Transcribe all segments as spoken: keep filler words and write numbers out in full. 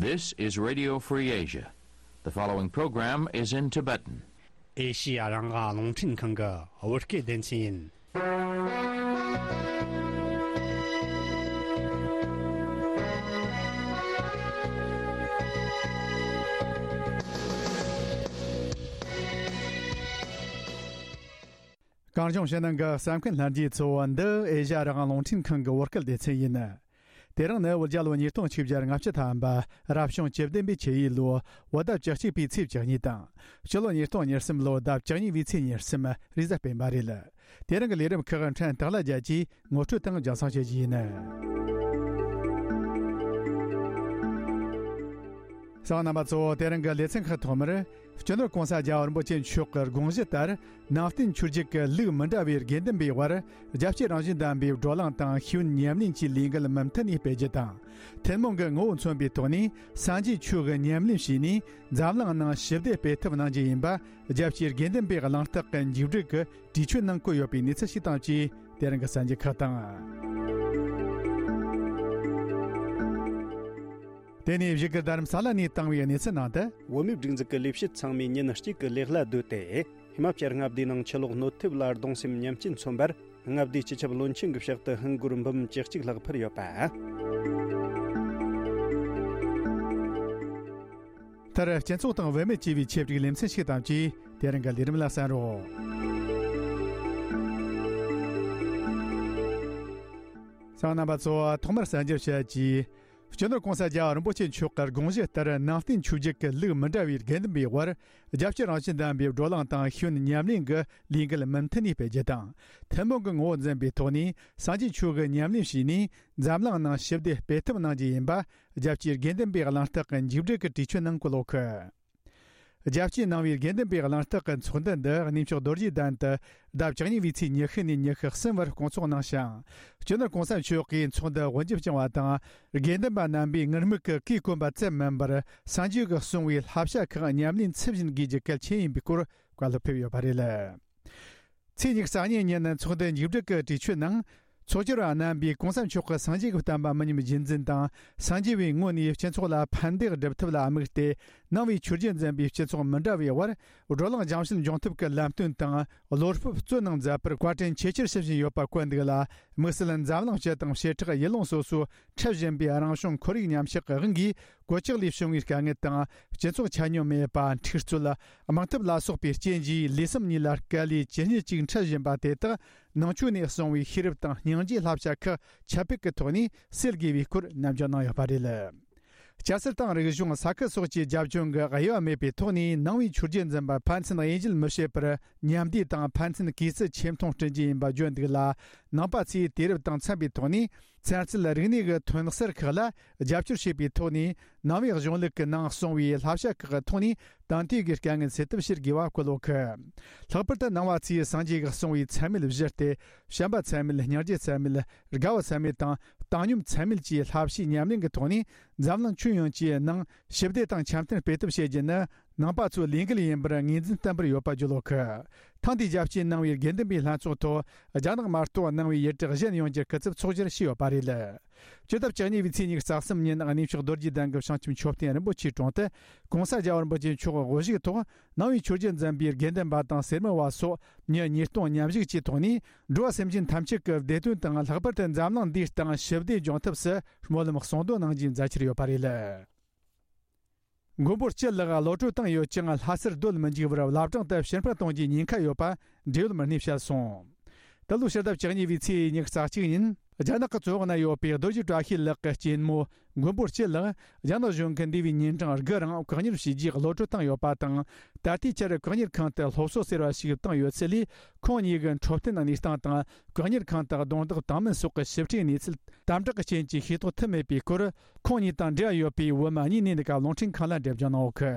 This is Radio Free Asia. The following program is in Tibetan. ཨེ་ཤི་ཡ་རང་དབང་རླུང་འཕྲིན་ཁང་གི་བོད་སྐད་སྡེ་ཚན་ཡིན། གངས་ལྗོངས་ཕྱི་ནང་གི་གསན་མཁན་ལྷན་རྒྱས་ཚོ། འདི་ཨེ་ཤ་ཡ་རང་དབང་རླུང་འཕྲིན་ཁང་གི་བོད་སྐད་སྡེ་ཚན་ཡིན། དེ་རིང་ནི་བོད་རྒྱལ་ལོ་ཉིས་སྟོང་ཆིག་བརྒྱ་ལྔ་བཅུ་ཐམ་པ་རབ་བྱུང་བཅུ་བདུན་པའི་ཆུ་ཡོས་ལོ་བོད་ཟླ་བཅུ་གཅིག་པའི་ཚེས་བཅུ་གཉིས་དང་། སྤྱི་ལོ་ཉིས་སྟོང་ཉེར་གསུམ་ལོ་ཟླ་བཅུ་གཉིས་པའི་ཚེས་ཉེར་གསུམ་རེས་གཟའ་སྤེན་པ་རེད། དེ་རིང་གི་ལས་རིམ་ཁག་ཕྲན་སྟག་ལྷ་རྒྱལ་གྱིས་ངོ་སྤྲོད་དང་རྒྱང་སྲིང་བྱེད་རྒྱུ་ཡིན། གསན་མཁན་རྣམ་པ་ཚོ། དེ་རིང་གི་ལེ་ཚན་ཁག་ཐོག་མར། སྤྱི་ནོར་༸གོང་ས་༸རྒྱལ་བ་རིན་པོ་ཆེ་མཆོག་གི་དགོངས་གཞི་ལྟར། ནང་བསྟན་ཆོས་བརྒྱུད་ཀྱི་ལུགས་མི་འདྲ་བའི་དགེ་འདུན་པའི་དབར་རྒྱལ་གཅེས་རང་བཞིན་ལྡན་པའི་བགྲོ་གླེང་དང་ཤེས་ཡོན་ཉམས་ལེན་གྱི་ལས་འགུལ་མུ་མཐུད་ནས་སྤེལ་རྒྱུ་དང་། ཐུན་མོང་གི་ངོ་བོ་མཚོན་པའི་ཐོག་ནས་སངས་རྒྱས་ཆོས་ཀྱི་ཉམས་ལེན་བྱས་ནས་འཛམ་གླིང་ནང་ཞི་བདེ་སྤེལ་ཐབས་གནང་རྒྱུ་ཡིན་པ། རྒྱལ་གཅེས་དགེ་འདུན་པའི་གླེང་སྟེགས་ཀྱི་མཇུག་སྒྲིལ་གྱི་གྲོས་ཆོད་ནང་བཀོད་ཡོད་པའི་གནས་ཚུལ་ཞིག་དང་བཅས། དེ་རིང་གི་གསར་འགྱུར་ཁག་དང་། དེ་ནས་བཞུགས་སྒར་རྡ་རམ་ས་ལ་ནས་བཏང་བའི་གནས་ཚུལ་ནང་དུ། བོད་མིའི་སྒྲིག་འཛུགས་ཀྱི་ལས་བྱེད་ཚང་མས་ཉིན་གཅིག་གི་ལས་གླ་བསྡུས་ཏེ། ཧི་མ་ཅལ་མངའ་སྡེའི་ནང་ཆུ་ལོག་གནོད་ཐེབས་ལ་གདུང་སེམས་མཉམ་སྐྱེད་མཚོན་པར། མངའ་སྡེའི་སྤྱི་ཁྱབ་བློན་ཆེན་གྱི་ཕྱག་ཏུ་ཧིན་སྒོར་འབུམ་བཅུ་གཅིག་ལྷག་ཕུལ་ཡོད་པ། མཐར་སྤྱི་ཚོགས་དང་བུད་མེད་ཅེས་པའི་ཆེད་བསྒྲིགས་ལེ་ཚན་ཞིག་དང་བཅས། དེ་རིང་གི་ལས་རིམ་ལ་གསན་རོགས། གསན་མཁན་རྣམ་པ་ཚོ། ཐོག་མར་གསར་འགྱུར་བཤད་རྒྱུ། སྤྱི་ནོར་༸གོང་ས་༸རྒྱལ་བ་རིན་པོ་ཆེ་མཆོག་གི་དགོངས་གཞི་ལྟར། ནང་བསྟན་ཆོས་བརྒྱུད་ཀྱི་ལུགས་མི་འདྲ་བའི་དགེ་འདུན་པའི་དབར་རྒྱལ་གཅེས་རང་བཞིན་ལྡན་པའི་བགྲོ་གླེང་དང་ཤེས་ཡོན་ཉམས་ལེན་གྱི་ལས་འགུལ་མུ་མཐུད་ནས་སྤེལ་རྒྱུ་དང་། ཐུན་མོང་གི་ངོ་བོ་འཛིན་པའི་ཐོག་ནས་སངས་རྒྱས་ཆོས་ཀྱི་ཉམས་ལེན་བྱས་ནས་འཛམ་གླིང་ནང་ཞི་བདེ་སྤེལ་ཐབས་གནང་རྒྱུ་ཡིན་པ། རྒྱལ་གཅེས་དགེ་འདུན་པའི་གླེང་སྟེགས་ཀྱི་མཇུག་སྒྲིལ་གྱི་གྲོས་ཆོད་ནང་བཀོད་ཡོད་གི། རྒྱལ་གཅེས་གནང་བའི་དགེ་འདུན་པའི་གླེང་སྟེགས་ཀྱི་ཚོགས་འདུ་འདི་གནས་མཆོག་རྡོ་རྗེ་གདན་དུ་ཟླ་བཅུ་གཉིས་པའི་ཚེས་ཉི་ཤུ་ནས་ཉི་ཤུ་གསུམ་བར་སྐོང་ཚོགས་གནང་ཞིང་། སྤྱི་ནོར་༸གོང་ས་མཆོག་གིས་ཚོགས་འདུ་དབུ་འབྱེད་བསྐྱངས་པ་དང་། དགེ་འདུན་པ་རྣམ་པས་ངུར་སྨྲིག་གི་གོས་གོན་པ་ཙམ་མིན་པར། སངས་རྒྱས་ཀྱིས་གསུངས་པའི་བསླབ་བྱ་ཁག་ཉམས་ལེན་ཚུལ་བཞིན་དགོས་རྒྱུ་གལ་ཆེན་ཡིན་པའི་སྐོར་བཀའ་སློབ་ཕེབས་ཡོད་པ་རེད། ཚེས་ཉི་ཤུ་རྩ་གཉིས་ཉིན་ཚོགས་འདུ་མཇུག་སྒྲིལ་གྱི་གྲོས་ཆོད་ནང་། ཚོགས་བཅར་བ་རྣམ་པས་༸གོང་ས་མཆོག་གི་སངས་རྒྱས་ཀྱི་བསྟན་པ་མི་ཉམས་རྒྱུན་འཛིན་དང་། སངས་རྒྱས་པའི་ངོས་ནས་སྤྱི་ཚོགས་ལ་ཕན་བདེ་སྒྲུབ་ཐབས་ལ་དམིགས་ཏེ། ནང་པའི་ཆོས་བརྒྱུད་འཛིན་པའི་སྤྱི་ཚོགས་མི་འདྲ་བའི་དབར་བགྲོ་གླེང་རྒྱང་ཤེལ་འབྱུང་ཐབས་ཀྱི་ལམ་སྟོན་དང་བློ་སྤོབས་སྩོལ་གནང་མཛད་པར་བཀའ་དྲིན་ཆེས་ཆེར་ཞུ་བཞིན་ཡོད་པ་བཀོད་འདུག་ལ། དམིགས་བསལ་འཛམ་གླིང་སྤྱི་དང་བྱེ་བྲག་ཡུལ་ལུང་སོ་སོའི་འཁྲབ་བཞིན་པའི་རང་བྱུང་ཁོར་ཡུག་ཉམས་ཆག་གི་དབང་གིས། གོད་ཆག་ལས་བྱུང་བའི་དཀའ་ངལ་དང་། སྤྱི་ཚོགས་ཆ་སྙོམས་མེད་པ། འཁྲུག་རྩོད། དམག་འཐབ་ལ་སོགས་པའི་རྐྱེན་གྱིས་ལུས་སེམས་གཉིས་ལ་དཀའ་ལས་ཇི་སྙེད་ཅིག་འཕྲད་བཞིན་པ་དེ་དག་ནང་ཆོས་ནས་གསུངས་པའི་ཤེས་རབ་དང་སྙིང་རྗེའི་བསླབ་བྱ་ཁག་ཁྱབ་སྤེལ་གྱི་ཐོག་ནས་སེལ་དགོས་པའི་སྐོར་ནན་བརྗོད་གནང་ཡོད་པ་རེད། སྐྱ་སེར་དང་རིག་གཞུང་ས་ཁུལ་སོགས་ཀྱི་རྒྱབ་ལྗོངས་ཀྱི་དབྱེ་བ་མེད་པའི་ཐོག་ནས་ནང་པའི་ཆོས་བརྒྱུད་འཛིན་པ་ཕན་ཚུན་དབྱེ་འབྱེད་མི་བྱེད་པར་མཉམ་བསྡེབས་དང་ཕན་ཚུན་གུས་བརྩི་ཆེ་མཐོང་བསྐྲུན་རྒྱུ་ཡིན་པ་བརྗོད་འདུག་ལ། ནང་པ་ཚོས་དུས་རབས་དང་འཚམ་པའི་ཐོག་ནས། ཚན་རྩལ་རིག་གནས་ཀྱི་ཐོན་གསར་ཁག་ལ་རྒྱབ་སྐྱོར་བྱེད་པའི་ཐོག་ནས། ནང་པའི་གཞུང་ལུགས་ཀྱི་ནང་གསུངས་པའི་བསླབ་བྱ་ཁག་གི་ཐོག་ནས་དེང་དུས་ཀྱི་དཀའ་ངལ་སེལ་ཐབས་བྱེད་དགོས་པ་བཀོད་ཡོད་གི། ལྷག་པར་དུ་ནང་པ་ཚོས་སངས་རྒྱས་ཀྱིས་གསུངས་པའི་ཚད་མེད་བཞི་སྟེ། བྱམས་པ་ཚད་མེད། སྙིང་རྗེ་ཚད་མེད། དགའ་བ་ཚད་མེད་དང་བཏང་སྙོམས་ཚད་མེད་ཀྱི་བསླབ་བྱའི་ཉམས་ལེན་གྱི་ཐོག་ནས། འཛམ་གླིང་ཁྱོན་ཡོངས་ཀྱི་ནང་ཞི་བདེ་དང་འཆམ་མཐུན་སྤེལ་ཐབས་བྱེད་རྒྱུ་ནི། ནང་པ་ཚོའི་ལས་འགུལ་ཡིན་པར་ངོས་འཛིན་བརྟན་པོར་ཡོད་པ་བརྗོད་ཡོད་གི། ཐེངས་འདིའི་རྒྱལ་སྤྱིའི་ནང་པའི་དགེ་འདུན་པའི་ལྷན་ཚོགས་ཐོག་རྒྱ་ནག་མ་གཏོགས་ནང་པའི་ཡུལ་གྲུ་གཞན་ཡོངས་ཀྱི་སྐུ་ཚབ་ཚོགས་བཅར་བྱས་ཡོད་པ་རེད། སྤྱི་ཟླ་བཅུ་གཉིས་པའི་ཚེས་ཉི་ཤུ་རྩ་གསུམ་ཉིན་གནས་མཆོག་རྡོ་རྗེ་གདན་གྱི་བྱང་ཆུབ་མཆོད་རྟེན་རིན་པོ་ཆེའི་དྲུང་དུ་༸གོང་ས་༸རྒྱལ་བ་རིན་པོ་ཆེ་མཆོག་དབུ་བཞུགས་ཐོག་ནང་པའི་ཆོས་བརྒྱུད་འཛིན་པའི་དགེ་འདུན་པ་དང་སེར་མོ་བ་སོགས་མི་ཉིས་སྟོང་མཉམ་ཞུགས་ཀྱི་ཐོག་ནས། འགྲོ་བ་སེམས་ཅན་ཐམས་ཅད་ཀྱི་བདེ་དོན་དང་། ལྷག་པར་དུ་འཛམ་གླིང་འདིའི་སྟེང་ཞི་བདེ་འབྱུང་ཐབས་སུ་སྨོན་ལམ་གསུང་འདོན་གནང་རྒྱུའི་མཛད་འཆར་ཡོད་པ་རེད། མགོན་པོ་སྤྱི་ལགས་གློད་གྲོལ་བཏང་ཡོད་ཀྱང་། ལྷ་སར་སྡོད་མི་འཇུག་པར་བླ་བྲང་དུ་ཕྱིར་འཕུར་གཏོང་རྒྱུའི་ཉེན་ཁ་ཡོད་པ་འབྲེལ་ཡོད་མི་སྣས་བཤད་སོང་། འདི་ལོའི་ཕྱི་ཟླ་བཅུ་གཉིས་པའི་ཚེས་ཉི་ཤུ་རྩ་གཅིག་ཉིན། རྒྱ་ནག་གི་བཙོན་འོག་ན་ཡོད་པའི་རྡོ་རྗེ་བཀྲ་ཤིས་ལགས་ཀྱི་གཅེན་མོ་མགོན་པོ་སྤྱི་ལགས་རྒྱ་ནག་གཞུང་གིས་འདས་པའི་ཉིན་གྲངས་དགུ་རིང་བཀག་ཉར་བྱས་རྗེས་གློད་གྲོལ་བཏང་ཡོད་པ་དང་། ད་ལྟའི་ཆར་བཀག་ཉར་ཁང་དུ་སློབ་གསོ་ཟེར་བ་ཞིག་བཏང་ཡོད་ཚུལ་ལས། ཁོང་གཉིས་ཀྱི་འཕྲོད་བསྟེན་གནས་སྟངས་དང་། བཀག་ཉར་ཁང་དུ་རྡུང་རྡེག་བཏང་མིན་སོགས་ཀྱི་ཞིབ་ཕྲའི་གནས་ཚུལ་དམ་དྲག་གི་རྐྱེན་གྱིས་ཤེས་རྟོགས་ཐུབ་མེད་པའི་སྐོར། ཁོང་གཉིས་དང་འབྲེལ་བ་ཡོད་པའི་བོད་མི་གཉིས་ནས་ནི་ཀ་རླུང་འཕྲིན་ཁང་ལ་འགྲེལ་བརྗོད་གནང་ཡོད་གི།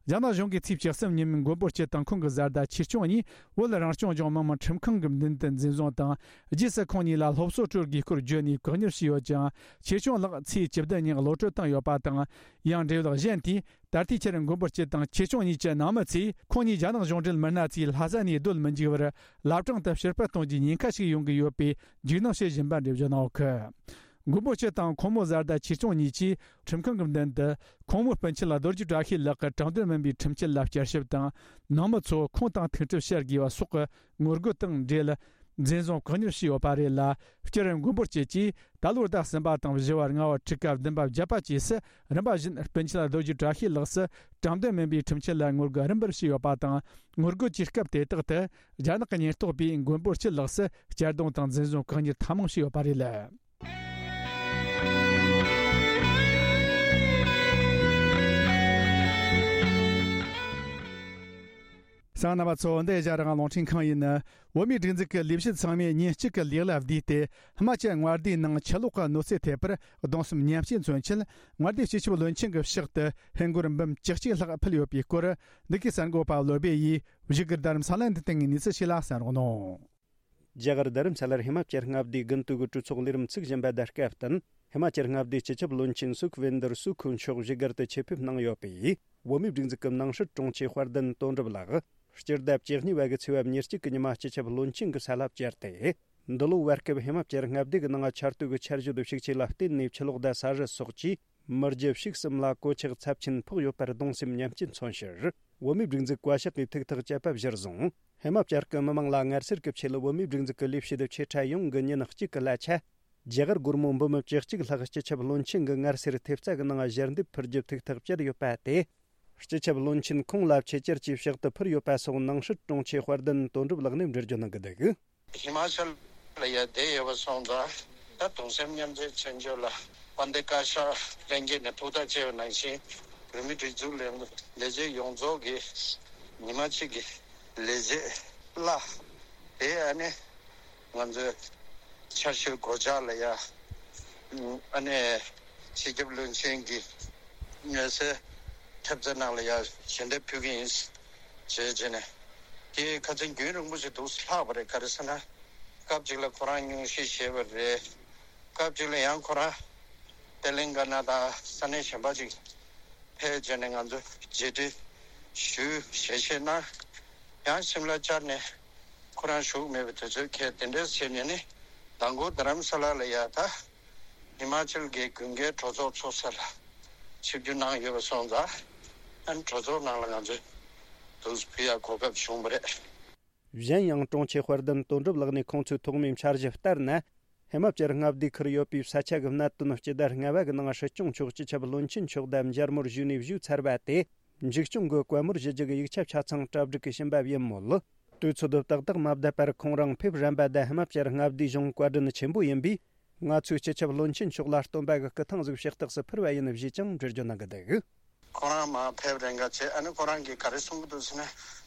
རྒྱ་ནག་གཞུང་གིས་ཚེས་བཅུ་གསུམ་ཉིན་མགོན་པོ་སྤྱི་དང་ཁོང་གི་བཟའ་ཟླ་ཆེ་ཆུང་གཉིས་བོད་རང་སྐྱོང་ལྗོངས་མི་དམངས་ཁྲིམས་ཁང་གི་མདུན་དུ་འཛིན་བཟུང་དང་། རྗེས་སུ་ཁོང་གཉིས་ལ་སློབ་གསོ་སྤྲོད་དགོས་སྐོར་བརྗོད་ནས་བཀག་ཉར་བྱས་ཡོད་ཅིང་། ཆེ་ཆུང་ལགས་ཚེས་བཅུ་བདུན་ཉིན་གློད་གྲོལ་བཏང་ཡོད་པ་དང་། ཡང་འབྲེལ་ཡོད་གཞན་དེས། ད་ལྟའི་ཆར་མགོན་པོ་སྤྱི་དང་ཆེ་ཆུང་གཉིས་ཀྱི་ནང་མི་ཚོས་ཁོང་གཉིས་རྒྱ་ནག་གཞུང་འབྲེལ་མི་སྣ་ཚོས་ལྷ་ས་ནས་སྡོད་མི་འཇུག་པར་བླ་བྲང་དུ་ཕྱིར་འཕུར་གཏོང་རྒྱུའི་ཉེན་ཁ་ཞིག་ཡོང་གི་ཡོད་པའི་འཇིགས་སྣང་བྱེད་བཞིན་པ་འགྲེལ་བརྗོད་གནང་ཡོད་གི། མགོན་པོ་སྤྱི་དང་ཁོང་མོ་བཟའ་ཟླ་ཆོས་སྐྱོང་གཉིས་ཀྱིས་ཁྲིམས་ཁང་གི་མདུན་དུ་ཁོང་མོའི་སྤུན་མཆེད་རྡོ་རྗེ་བཀྲ་ཤིས་ལགས་ཀྱི་དྲང་བདེན་མིན་པའི་ཁྲིམས་ཆད་ལ་བསྐྱར་ཞིབ་དང་། ནང་མི་ཚོ་ཁུངས་དང་ཐུག་འཕྲད་བྱེད་དགོས་པ་སོགས་ཀྱི་ངོ་རྒོལ་དང་འབྲེལ། འཛིན་བཟུང་བཀག་ཉར་བྱས་ཡོད་པ་རེད་ལ། སྤྱིར་མགོན་པོ་སྤྱི་གྱིས་ད་ལོའི་ཟླ་གསུམ་པ་དང་བཞི་བ། ལྔ་བ། དྲུག་པ། བདུན་པ། བརྒྱད་པ་བཅས་སུ་རིམ་པ་བཞིན་སྤུན་མཆེད་རྡོ་རྗེ་བཀྲ་ཤིས་ལགས་སུ་དྲང་བདེན་མིན་པའི་ཁྲིམས་ཆད་ལ་ངོ་རྒོལ་རིམ་པར་བྱས་ཡོད་པ་དང་། ངོ་རྒོལ་གྱི་སྐབས་དེ་དག་ཏུ་རྒྱ་ནག་གི་ཉེན་རྟོག་པས་མགོན་པོ་སྤྱི་ལགས་སུ་གཅར་རྡུང་དང་འཛིན་བཟུང་བཀག་ཉར་ཐེངས་མང་བྱས་ཡོད་པ་རེད། གསན་མཁན་རྣམ་པ་ཚོ། འདི་ཨེ་ཤ་ཡ་རང་དབང་རླུང་འཕྲིན་ཁང་ཡིན། བོད་མིའི་སྒྲིག་འཛུགས་ཀྱི་ལས་བྱེད་ཚང་མས་ཉིན་གཅིག་གི་ལས་གླ་བསྡུས་ཏེ། ཧི་མ་ཅལ་མངའ་སྡེའི་ནང་ཆུ་ལོག་གི་གནོད་འཚེ་ཐེབས་པར་གདུང་སེམས་མཉམ་སྐྱེད་མཚོན་ཆེད། མངའ་སྡེའི་སྤྱི་ཁྱབ་བློན་ཆེན་གྱི་ཕྱག་ཏུ་ཧིན་སྒོར་འབུམ་བཅུ་གཅིག་ལྷག་ཕུལ་ཡོད་པའི་སྐོར། འདི་གའི་གསར་འགོད་པ་བློ་སྦེ་ཡིས་བཞུགས་སྒར་རྡ་རམ་ས་ལ་འདི་སྟེང་གི་གནས་ཚུལ་ཞིག་ལ་གསན་རོགས་གནང་། རྒྱ་གར་རྡ་རམ་ས་ལར་ཧི་མ་ཅལ་མངའ་སྡེའི་དགུན་དུས་ཀྱི་གྲོས་ཚོགས་ལས་རིམ་ཚུགས་བཞིན་པ་དང་སྐབས་བསྟུན། ཧི་མ་ཅལ་མངའ་སྡེའི་སྤྱི་ཁྱབ་བློན་ཆེན་སུ་ཁུ་ཝིན་དར་སུ་ཁུ་མཆོག་བཞུགས་སྒར་དུ་ཆེད་ཕེབས་གནང་ཡོད་པས། བོད་མིའི་སྒྲིག་འཛུགས་ཀྱི་ནང་སྲིད་དྲུང་ཆེ་དཔལ་ལྡན་དོན་གྲུབ་ལགས་སྤྱི་ཟླ་བཅུ་གཉིས་པ་གི་ཚེས་པ་ཉེར་གཅིག་གི་ཉི་མ་སྤྱི་ཁྱབ་བློན་ཆེན་གྱི་ས་ལ་བཅར་ཏེ། འདི་ལོའི་བར་སྐབས་ཧི་མ་ཅལ་མངའ་སྡེ་གི་ནང་ཆར་དུས་ཀྱི་ཆར་ཞོད་ཤུགས་ཆེ་ལ་བརྟེན་ནས་ཆུ་ལོག་དང་ས་རུད་སོགས་ཀྱིས་མི་རྒྱུ་ཕྱུགས་གསུམ་ལ་གོད་ཆག་ཚབས་ཆེན་ཕོག་ཡོད་པར་གདུང་སེམས་མཉམ་སྐྱེད་མཚོན་ཕྱིར། བོད་མིའི་སྒྲིག་འཛུགས་བཀའ་ཤག་གིས་ཐུགས་ཐག་བཅད་པ་གཞིར་བཟུང་། ཧི་མ་ཅལ་གྱི་མི་མང་ལ་ངལ་སེལ་གྱི་ཆེད་ལ་བོད་མིའི་སྒྲིག་འཛུགས་ཀྱི་ལས་བྱེད་ཆེ་ཕྲ་ཡོངས་ཀྱིས་ཉིན་གཅིག་གི་གླ་ཆ། རྒྱ་གར་སྒོར་མོ་འབུམ་བཅུ་གཅིག་ལྷག་སྤྱི་ཁྱབ་བློན་ཆེན་གྱི་ངལ་སེལ་ཐེབས་རྩ་གི་ནང་ཞལ་འདེབས་ཕུལ་རྒྱུ་ཐུགས་ཐག་བཅད་ཡོད་པ་དེ། སྤྱི་ཁྱབ་བློན་ཆེན་ཁོང་ལ་ཆེད་བཅར་གྱིས་ཕྱག་ཏུ་ཕུལ་ཡོད་པ་སོགས་ནང་སྲིད་དྲུང་ཆེ་དཔལ་ལྡན་དོན་གྲུབ་ལགས་ནས་འགྲེལ་བརྗོད་གནང་གི་འདུག། ཧི་མ་ཅལ་ལ་ཡ་བསྡད་ཡོད་པ་སོང་ཙང་། ད་གདུང་སེམས་མཉམ་སྐྱེད་མཚོན་ཆེད་ལ་དཔལ་ལྡན་བཀའ་ཤག་ལྷན་རྒྱས་ནས་ཐུགས་ཐག་བཅད་པ་ནང་བཞིན། བོད་མིའི་སྒྲིག་འཛུགས་ལས་ལས་བྱེད་ཡོངས་རྫོགས་ཀྱི་ཉི་མ་གཅིག་གི་ལས་བྱེད་གླ་དེ། ཨ་ནི་ང་ཚོའི་ཆར་ཞོད་གོད་ཆག་ལ་ཡ། ཨ་ནི་སྤྱི་ཁྱབ་བློན་ཆེན་གྱི་ངལ་སེལ་ཐེབས་རྩ་ནང་ལ་ཡ་ཞལ་འདེབས་ཕུལ་གྱི་ཡིན་ཞེས་བྱས་ནས། དེ་ཁ་སང་རྒྱུན་རིང་པོ་ཞིག་འདུག་ལྷག་པ་རེད། ག་རེ་ཟེར་ན། སྐབས་གཅིག་ལ་ཁོ་རང་སྙུང་གཞི་བཞེས་པ་རེད། སྐབས་གཅིག་ལ་ཡང་ཁོ་རང་ཏེ་ལིང་ག་ན་དང་ས་གནས་གཞན་པ་ཅིག་ཕེབས་བྱས་ནས་ང་ཚོ་མཇལ་འཕྲད་ཞུས་ཞལ་བཞེས་གནང་། ཡང་ཤིམ་ལ་བཅར་ནས་ཁོ་རང་བཞུགས་མེད་པའི་དུས་ཚོད་འཁེལ། དེ་འདྲ་བྱས་ནས་ནི་མདང་དགོང་རྡ་རམ་ས་ལ་ལ་ཡ་ད་ཧི་མ་ཅལ་གྱི་དགུན་ཁའི་གྲོས་ཚོགས་ཚོགས་ས་ལ་ཆིབས་བསྒྱུར་གནང་ཡོད་པ་སོང་ཙང་། ཨ་ནི་གྲོས་ཚོགས་ནང་ལ་ང་ཚོས་དུས་ཕུལ་ཡག་གོ་སྐབས་བྱུང་བ་རེད། གཞན་ཡང་དྲུང་ཆེ་དཔལ་ལྡན་དོན་གྲུབ་ལགས་ནས་ཁོང་ཚོའི་ཐོག་མའི་འཆར་གཞི་ལྟར་ན། ཧི་མ་ཅལ་མངའ་སྡེའི་ཁུལ་ཡོད་པའི་ས་ཆ་གི་གནད་དོན་སྤྱི་ཟླ་ལྔ་པ་གི་ནང་སྲིད་སྐྱོང་མཆོག་སྤྱི་ཁྱབ་བློན་ཆེན་མཆོག་དང་མཇལ་མོལ་ཞུས་ནས་བཞུགས་ཚར་བ་དེ། མཇུག་སྐྱོང་གི་བཀའ་མོལ་ཞུ་རྒྱུ་གི་ཡིག་ཆ་ཆ་ཚང་གྲ་སྒྲིག་གིས་ཕྱིན་པ་ཡིན་མོད། དུས་ཚོད་ཏག་ཏག་མ་བསྡད་པར་ཁོང་རང་ཕེབས་རན་པ་དང་ཧི་མ་ཅལ་མངའ་སྡེའི་གཞུང་བཀའ་དྲིན་ཆེན་པོ་ཡིན་པས། ང་ཚོས་སྤྱི་ཁྱབ་བློན་ཆེན་མཆོག་ལ་སྟོན་པ་གི་སྐུ་ཐང་ཟིག་ཕྱག་རྟགས་སུ་ཕུལ་བ་ཡིན་ཞེས་ཀྱང་འགྲེལ་བརྗོད་གནང་གི་འདུག། ཁོ་རང་མར་ཕེབས་རན་ག་བྱས། ཨ་ནི་ཁོ་རང་གིས་ག་རེ་གསུང་གི་འདུག་ཟེར་ན།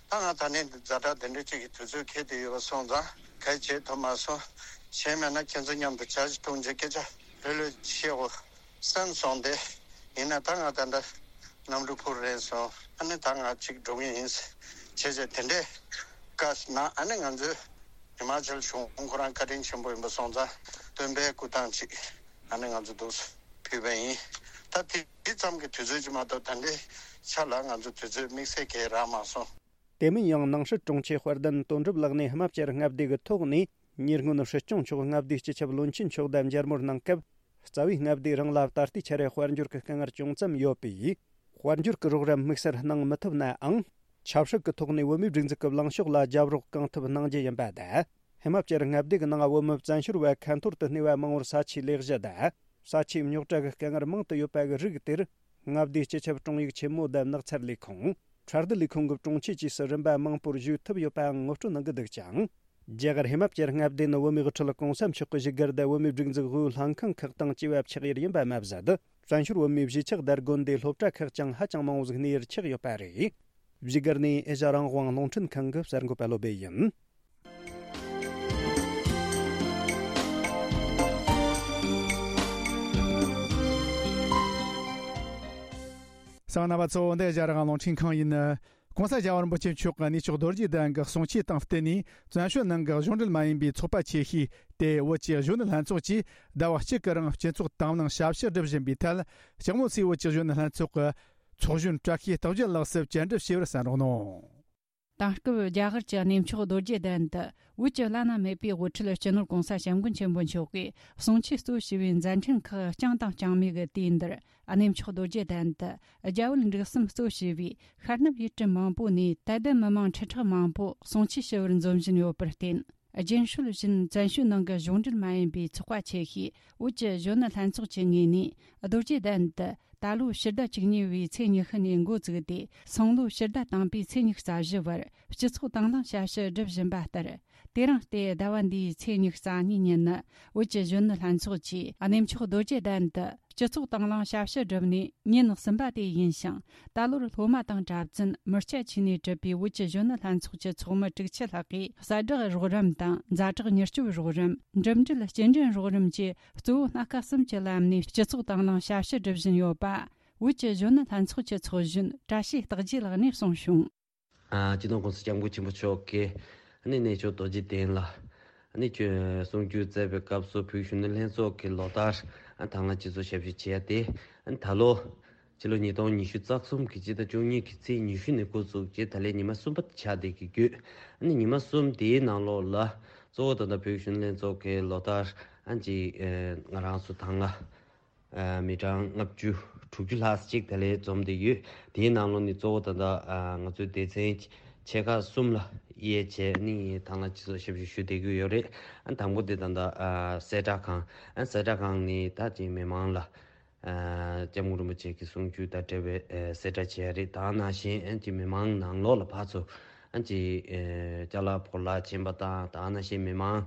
ད་ང་ད་ནས་འདི་ཛ་དྲག་དེ་འདྲ་ཅིག་གི་དུས་ཚོད་འཁེལ་བསྡད་ཡོད་པ་སོང་ཙང་ག་རེ་བྱེད་ཐུབ་མ་སོང་། གཞན་མེད་ན་ཁྱེད་ཚོ་མཉམ་དུ་ཇ་ཞིག་འཐུང་བྱས་སྐད་ཆ་ལྷོད་ལྷོད་བཤད་དགོས་བསམ་སོང་སྟེ། ཡིན་ན་ད་ང་ད་ལྟ་གནམ་གྲུ་འཕུར་རན་སོང་། ཨ་ནི་ད་ང་གཅིག་འགྲོ་གི་ཡིན་བྱས་བྱས་དེ་འདྲའི་བཀའ་གནང་། ཨ་ནི་ང་ཚོས་ཧི་མ་ཅལ་གཞུང་ཁོ་རང་བཀའ་དྲིན་ཆེན་པོ་ཡིན་པ་སོང་ཙང་སྟོན་པའི་སྐུ་ཐང་ཅིག་ཨ་ནི་ང་ཚོ་འདུག་ཕུལ་བ་ཡིན། ད་དེ་དེ་ཙམ་གྱི་དུས་ཚོད་ཅིག་མ་གཏོགས་ད་ལྟའི་ཆ་ལ་ང་ཚོ་དུས་ཚོད་དམིགས་བསལ་གང་ཡང་རག་མ་སོང་། དེ་མིན་ཡང་ནང་སྲིད་དྲུང་ཆེ་དཔལ་ལྡན་དོན་གྲུབ་ལགས་ནས་ཧི་མ་ཅལ་མངའ་སྡེ་གི་ཐོག་ནས་ཉེ་སྔོན་སྲིད་སྐྱོང་མཆོག་མངའ་སྡེའི་སྤྱི་ཁྱབ་བློན་ཆེན་མཆོག་དང་མཇལ་མོལ་གནང་སྐབས། རྩ་བའི་མངའ་སྡེའི་རང་ལ་ད་ལྟའི་ཆར་དཔལ་འབྱོར་གྱི་དཀའ་ངལ་ཅུང་ཙམ་ཡོད་པས། དཔལ་འབྱོར་གྱི་རོགས་རམ་དམིགས་བསལ་གནང་མི་ཐུབ་ནའང་། ཆབ་སྲིད་ཀྱི་ཐོག་ནས་བོད་མིའི་སྒྲིག་འཛུགས་ཀྱི་ལངས་ཕྱོགས་ལ་རྒྱབ་རོགས་གང་ཐུབ་གནང་རྒྱུ་ཡིན་པ་དང་། ཧི་མ་ཅལ་མངའ་སྡེ་གི་ནང་བོད་མི་བཙན་བྱོལ་བ་ཁ་འཐོར་དུ་གནས་པ་མང་བོར་ས་ཆའི་ལས་གཞི་དང་། ས་ཆའི་རྙོག་དྲ་གི་དཀའ་ངལ་མང་དུ་ཡོད་པ་གི་རིགས་དེར། མངའ་སྡེའི་སྤྱི་ཁྱབ་དྲུང་ཡིག་ཆེན་མོ་དང་ནགས་ཚལ་ལས་ཁུངས། ཁྲལ་བསྡུ་ལས་ཁུངས་ཀྱི་དྲུང་ཆེ་བཅས་སུ་རིམ་པ་མང་པོར་ཞུགས་ཐུབ་ཡོད་པའང་ངོ་སྤྲོད་གནང་གི་འདུག་ཅིང་། རྒྱ་གར་ཧི་མ་ཅལ་མངའ་སྡེ་ནི་བོད་མིའི་དབུ་ཁྲིད་གོང་ས་མཆོག་གི་བཞུགས་སྒར་དང་བོད་མིའི་སྒྲིག་འཛུགས་དབུས་ལྷན་ཁང་ཁག་དང་བཅས་པ་ཆགས་ཡུལ་ཡིན་པ་མ་ཟད། བཙན་བྱོལ་བོད་མིའི་གཞིས་ཆགས་དང་དགོན་སྡེ་སློབ་གྲྭ་ཁག་ཀྱང་ཧ་ཅང་མང་བོ་ཟིག་གནས་ཡུལ་ཆགས་ཡོད་པ་རེད། བཞུགས་སྒར་ནས་ཨེ་ཤ་རང་དབང་རླུང་འཕྲིན་ཁང་གི་གསར་འགོད་པ་བློ་སྦེ་ཡིན། གསན་མཁན་རྣམ་པ་ཚོ། འདི་ཨེ་ཤ་ཡ་རང་དབང་རླུང་འཕྲིན་ཁང་ཡིན། ༸གོང་ས་༸རྒྱལ་བ་རིན་པོ་ཆེ་མཆོག་གི་གནས་མཆོག་རྡོ་རྗེ་གདན་གྱི་གསུང་ཆོས་དང་བསྟུན་ནས། བཙན་བྱོལ་ནང་གི་གཞུང་འབྲེལ་མ་ཡིན་པའི་ཚོགས་པ་ཆེ་ཤོས་དེ་བོད་ཀྱི་གཞོན་ནུ་ལྷན་ཚོགས་ཀྱིས་ཟླ་བ་གཅིག་གི་རིང་སྤྱི་ཚོགས་དང་བླངས་ཞབས་ཕྱི་སྒྲུབ་བཞིན་པའི་ཐད། ལྕགས་མོ་སའི་བོད་ཀྱི་གཞོན་ནུ་ལྷན་ཚོགས་ཀྱི་ཚོགས་གཞོན་བཀྲ་ཤིས་རྟགས་བརྒྱད་ལགས་སུ་བཅར་འདྲི་ཞུས་པར་གསན་རོགས་གནང་། དེང་སྐབས་རྒྱ་གར་གྱི་གནས་མཆོག་རྡོ་རྗེ་གདན་དུ་བོད་ཀྱི་བླ་ན་མེད་པའི་དབུ་ཁྲིད་སྤྱི་ནོར་༸གོང་ས་༸སྐྱབས་མགོན་ཆེན་པོ་མཆོག་གིས་གསུང་ཆོས་གཙོ་བྱས་པའི་མཛད་འཕྲིན་ཁག་རྐྱང་དང་རྐྱང་མེད་ཀྱི་དུས་འདིར། གནས་མཆོག་རྡོ་རྗེ་གདན་དུ་རྒྱ་བོད་འབྲུག་གསུམ་གཙོ་བྱས་པའི་ཤར་ནུབ་ཡུལ་གྲུ་མང་པོ་ནས་དད་ལྡན་མི་མང་ཁྲི་ཕྲག་མང་པོ་གསུང་ཆོས་ཞུ་བར་འཛོམས་བཞིན་ཡོད་པར་བརྟེན། རྒྱུན་སྲོལ་བཞིན་བཙན་བྱོལ་ནང་གི་གཞུང་འབྲེལ་མ་ཡིན་པའི་ཚོགས་པ་ཆེ་ཤོས་བོད་ཀྱི་གཞོན་ནུ་ལྷན་ཚོགས་ཀྱི་ངོས་ནས། རྡོ་རྗེ་གདན་དུ་ད་ལོ་ཕྱི་ཟླ་བཅུ་གཉིས་པའི་ཚེས་ཉི་ཤུ་ནས་འགོ་བཙུགས་ཏེ། སང་ལོ་ཕྱི་ཟླ་དང་པའི་ཚེས་ཉི་ཤུ་རྩ་བཞི་བར་སྤྱི་ཚོགས་དང་བླངས་ཞབས་ཞུ་སྒྲུབ་བཞིན་པ་ལྟར། དེ་རིང་སྟེ་ཟླ་བ་འདིའི་ཚེས་ཉི་ཤུ་རྩ་གཉིས་ཉིན་ནི། བོད་ཀྱི་གཞོན་ནུ་ལྷན་ཚོགས་ཀྱིས་གནས་མཆོག་རྡོ་རྗེ་གདན་དུ་སྤྱི་ཚོགས་དང་བླངས་ཞབས་ཞུ་བསྒྲུབས་ནས་ཉིན་གསུམ་པ་དེ་ཡིན་ཞིང་། ད་ལོར་སློབ་མ་དང་གྲྭ་བཙུན་མི་སྐྱ་བཅས་ནས་གྲུབ་པའི་བོད་ཀྱི་གཞོན་ནུ་ལྷན་ཚོགས་ཀྱི་ཚོགས་མི་དྲུག་ཅུ་ལྷག་གིས་གསལ་བསྒྲགས་རོགས་རམ་དང་ཛ་དྲག་མྱུར་སྐྱོབ་རོགས་རམ། འགྲིམ་འགྲུལ་སྐྱེལ་འདྲེན་རོགས་རམ་བཅས་གཙོ་བོ་སྣ་ཁ་གསུམ་གྱི་ལམ་ནས་སྤྱི་ཚོགས་དང་བླངས་ཞབས་ཞུ་སྒྲུབ་བཞིན་ཡོད་པ། བོད་ཀྱི་གཞོན་ནུ་ལྷན་ཚོགས་ཀྱི་ཚོགས་གཞོན་བཀྲ་ཤིས་རྟག་རྒྱས་ལགས་ནས་གསུངས་བྱུང་། ཨ། སྤྱི་ནོར་༸གོང་ས་༸སྐྱབས་མགོན་ཆེན་པོ་མཆོག་གིས་ཨ་ནི་གནས་མཆོག་རྡོ་རྗེ་གདན་ལ་ཨ་ནི་གསུང་ཆོས་སྩལ་བའི་སྐབས་སུ། བོད་གཞོན་ནུ་ལྷན་ཚོགས་ཀྱི་ལོ་ལྟར་ཨ་དང་བླངས་སྤྱི་ཚོགས་ཞབས་ཞུ་བྱས་ཏེ། ཨ་ནི་ད་ལོ་ཕྱི་ལོ་ཉིས་སྟོང་ཉི་ཤུ་རྩ་གསུམ་གྱི་སྤྱི་ཟླ་བཅུ་གཉིས་ཀྱི་ཚེས་ཉི་ཤུ་ནས་འགོ་བཙུགས་རྗེས་ད་ལོའི་ཉི་མ་གསུམ་པ་ཆགས་བསྡད་ཀྱི་ཡོད། ཨ་ནི་ཉི་མ་གསུམ་དེའི་ནང་ལོགས་ལ་གཙོ་བོ་ད་ལྟ་བོད་གཞོན་ནུ་ལྷན་ཚོགས་ཀྱི་ལོ་ལྟར་ཨ་ཅིག་ཨ་ང་རང་ཚོ་དང་བླངས་ཨ་མི་གྲངས་ལྔ་བཅུ་དྲུག་ཅུ་ལྷག་ཅིག་ད་ལོ་འཛོམས་བསྡད་ཡོད། དེའི་ནང་ལོགས་ནས་གཙོ་བོ་ད་ལྟ་ཨ་ང་ཚོའི་སྡེ་ཚན་ཆེ་ཁག་གསུམ་ལ་དབྱེ་བྱས་ནས་དང་བླངས་སྤྱི་ཚོགས་ཞབས་ཞུ་ཞུ་བསྡད་ཀྱི་ཡོད་རེད། ཨ་དང་པོ་དེ་ད་ལྟ་ཨ་གསལ་བསྒྲགས་ཁང་། ཨ་གསལ་བསྒྲགས་ཁང་ནས་ད་ཅིག་མི་མང་ལ་ཨ་སྐྱབས་མགོན་རིན་པོ་ཆེ་གི་གསུང་ཆོས་དང་འབྲེལ་བའི་ཨ་གསལ་བསྒྲགས་བྱས་རེད། དེ་ནང་བཞིན་ཨ་ཅིག་མི་མང་ནང་ལོགས་ལ་ཕར་ཚུར་ཨ་ཅིག་ཨ་ཅ་ལག་བོར་བརླག་ཕྱིན་པ་དང་། དེ་ནང་བཞིན་མི་མང་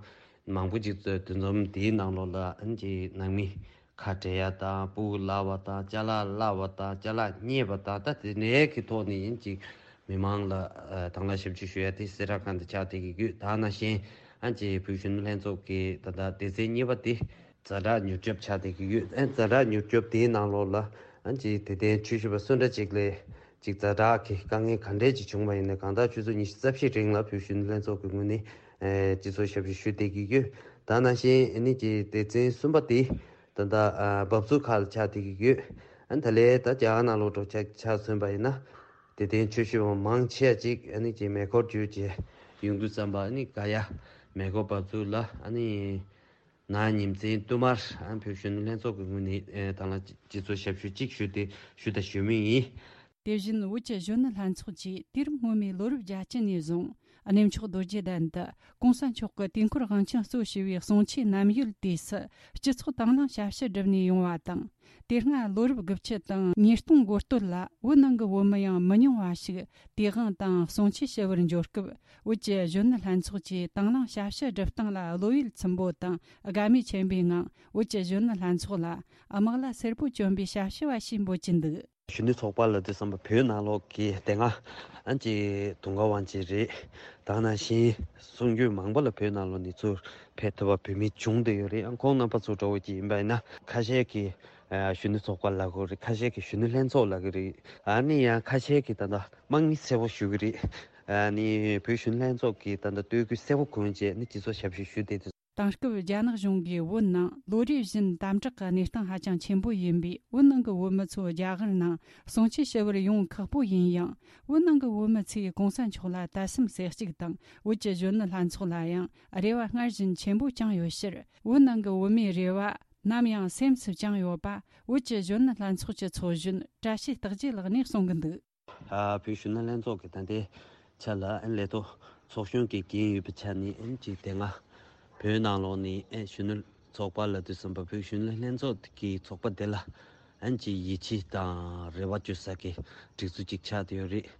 མང་པོ་ཅིག་འདུ་འཛོམས་དེའི་ནང་ལོགས་ལ་ཨ་ཅིག་ནང་མི་ཁ་བྲལ་ཡ་དང་། སྤུ་གུ་བརླག་པ་དང་། ཅ་ལག་བརླག་པ་དང་། ཅ་ལག་རྙེད་པ་དང་། ད་དེ་འདྲའི་གི་ཐོག་ནས་ཨ་ཅིག་མི་མང་ལ་ཨ་དང་བླངས་ཞབས་ཕྱི་ཞུ་ཡ་དེ་གསལ་བསྒྲགས་ཁང་དུ་ཆགས་བསྡད་ཀྱི་ཡོད། དེ་ནང་བཞིན་ཨ་ཅིག་བོད་གཞོན་ནུ་ལྷན་ཚོགས་ཀྱི་ད་ལྟ་སྡེ་ཚན་གཉིས་པ་དེ་ཛ་དྲག་མྱུར་སྐྱོབ་ཆགས་བསྡད་ཀྱི་ཡོད། ཨ་ཛ་དྲག་མྱུར་སྐྱོབ་དེའི་ནང་ལོགས་ལ་ཨ་ཅིག་དད་ལྡན་ཆོས་ཞུ་བ་སུ་འདྲ་ཅིག་ལ་ཅིག་ཛ་དྲག་གི་དཀའ་ངལ་ག་འདྲས་ཅིག་བྱུང་བ་ཡིན་ན། གང་ལྟར་ཆུ་ཚོད་ཉི་ཤུ་རྩ་བཞིའི་རིང་ལ་བོད་གཞོན་ནུ་ལྷན་ཚོགས་ཀྱི་ངོས་ནས་ཨ་སྤྱི་ཚོགས་ཞབས་ཞུ་ཞུ་བསྡད་ཀྱི་ཡོད། དེ་ནང་བཞིན་ཨ་ནི་ཅིག་སྡེ་ཚན་གསུམ་པ་དེ་ད་ལྟ་ཨ་འབབ་ཚུགས་ཁག་ལ་ཆགས་བསྡད་ཀྱི་ཡོད། ཨ་ད་ལོའི་ད་རྒྱ་གར་ནང་ལོགས་འགྲོ་ཆ་ཆ་མཚོན་པ་ཡིན་ན། དད་ལྡན་ཆོས་ཞུ་བ་མང་ཆེ་བ་ཅིག་ཨ་ནི་ཅིག་མེ་འཁོར་བརྒྱུད་བྱས་ཡོང་དུས་ཙམ་པ། ཨ་ནི་ག་ཡ་མེ་འཁོར་འབབ་ཚུགས་ལ་ཨ་ནི་ན་ཉིན་མཚན་བསྟུད་མར་ཨ་བོད་གཞོན་ནུ་ལྷན་ཚོགས་ཀྱི་ངོས་ནས་ཨ་དང་བླངས་སྤྱི་ཚོགས་ཞབས་ཞུ་གཅིག་ཞུས་ཏེ་ཞུས་དང་ཞུ་མུས་ཡིན། དེ་བཞིན་བོད་ཀྱི་གཞོན་ནུ་ལྷན་ཚོགས་ཀྱིས་དུས་རབས་སྔོན་མའི་ལོ་རབས་བརྒྱད་ཅུ་ནས་བཟུང་གནས་མཆོག་རྡོ་རྗེ་གདན་དུ་༸གོང་ས་མཆོག་གི་དུས་འཁོར་དབང་ཆེན་གཙོ་བྱས་པའི་གསུང་ཆོས་རྣམ་ཡོལ་དུས་སུ་སྤྱི་ཚོགས་དང་བླངས་ཞབས་ཞུ་བསྒྲུབས་ནས་ཡོང་བ་དང་། དེ་སྔ་ལོ་རབས་དགུ་བཅུ་དང་ཉིས་སྟོང་འགོ་སྟོད་ལ་བོད་ནང་གི་བོད་མི་ཡང་མི་ཉུང་བ་ཞིག་དུས་དབང་དང་གསུང་ཆོས་ཞུ་བར་འབྱོར་སྐབས། བོད་ཀྱི་གཞོན་ནུ་ལྷན་ཚོགས་ཀྱིས་དང་བླངས་ཞབས་ཞུ་སྒྲུབ་སྟངས་ལ་བློ་ཡིད་ཚིམ་པོ་དང་དགའ་མོས་ཆེན་པོའི་ངང་། བོད་ཀྱི་གཞོན་ནུ་ལྷན་ཚོགས་ལ་དམག་ལྭ་སེར་པོ་གྱོན་པའི་ཞབས་ཞུ་བ་ཞིག་འབོད་ཀྱིན་འདུག། གཞོན་ནུ་ཚོགས་པ་ལབ་དུས་ཙམ་པ་བོད་ནང་ལོགས་ཀྱི་དེ་སྔ་ཨ་ཅེ་དུང་དཀར་དབང་ཆེན་རེད། དེ་ནང་བཞིན་གསུང་ཆོས་མང་པོ་ལ་བོད་ནང་ལོགས་ནས་ཚུར་ཕེབས་ཐུབ་པ་བོད་མི་བྱུང་བསྡད་ཡོད་རེད། ཨ་ཁོང་རྣམ་པ་ཚོ་འདྲ་བོ་ཅིག་ཡིན་པ་ཡིན་ན། ཁ་ཤས་ཀྱིས་ཨ་གཞོན་ནུ་ཚོགས་པ་ལབ་ཀྱི་རེད། ཁ་ཤས་ཀྱིས་གཞོན་ནུ་ལྷན་ཚོགས་ལབ་ཀྱི་རེད། ཨ་ནི་ཡང་ཁ་ཤས་ཀྱིས་ད་ལྟ་དམག་མི་སེར་པོ་ཞུ་གི་རེད། ཨ་ནི་བོད་གཞོན་ནུ་ལྷན་ཚོགས་ཀྱིས་ད་ལྟ་སྟོད་ཁུལ་སེར་པོ་ཁུལ་བྱས་ནས་སྤྱི་ཚོགས་ཞབས་ཞུ་ཞུས་ཏེ། དེང་སྐབས་རྒྱ་ནག་གཞུང་གིས་བོད་ནང་ལོ་རེ་བཞིན་དམ་དྲག་གི་གནས་སྟངས་ཧ་ཅང་ཆེན་པོ་ཡིན་པས། བོད་ནང་གི་བོད་མི་ཚོ་རྒྱ་གར་ནང་གསུང་ཆོས་ཞུ་བར་ཡོང་ཁག་པོ་ཡིན་ཡང་། བོད་ནང་གི་བོད་མི་ཚོས་༸གོང་ས་མཆོག་ལ་དད་སེམས་གསལ་གཅིག་དང་། བོད་ཀྱི་གཞོན་ནུ་ལྷན་ཚོགས་ལ་ཡང་རེ་བ་སྔར་བཞིན་ཆེན་པོ་བཅངས་ཡོད་ཕྱིར། བོད་ནང་གི་བོད་མིའི་རེ་བ་ནམ་ཡང་སེམས་སུ་བཅངས་ཡོད་པ། བོད་ཀྱི་གཞོན་ནུ་ལྷན་ཚོགས་ཀྱི་ཚོགས་གཞོན་བཀྲ་ཤིས་རྟག་རྒྱས་ལགས་ནས་གསུང་གི་འདུག། ཨ་བོད་གཞོན་ནུ་ལྷན་ཚོགས་ཀྱི་ད་ལྟའི་ཆ་ལ་ཨ་ལས་ཐོག་ཚོགས་གཞོན་གྱི་འགན་ཡོད་པའི་ཆ་ནས། ཨ་ཅིག་དེ་སྔ་བོད་ནང་ལོགས་ནས་ཨ་གཞོན་ནུ་ཚོགས་པ་ལབ་དུས་ཙམ་པ་བོད་གཞོན་ནུ་ལྷན་ཚོགས་ཀྱི་ཚོགས་པ་དེ་ལ་ཨ་ཅིག་ཡིད་ཆེས་དང་རེ་བ་བཅོལ་ས་གི་སྒྲིག་འཛུགས་ཅིག་ཆགས་བསྡད་ཡོད་རེད།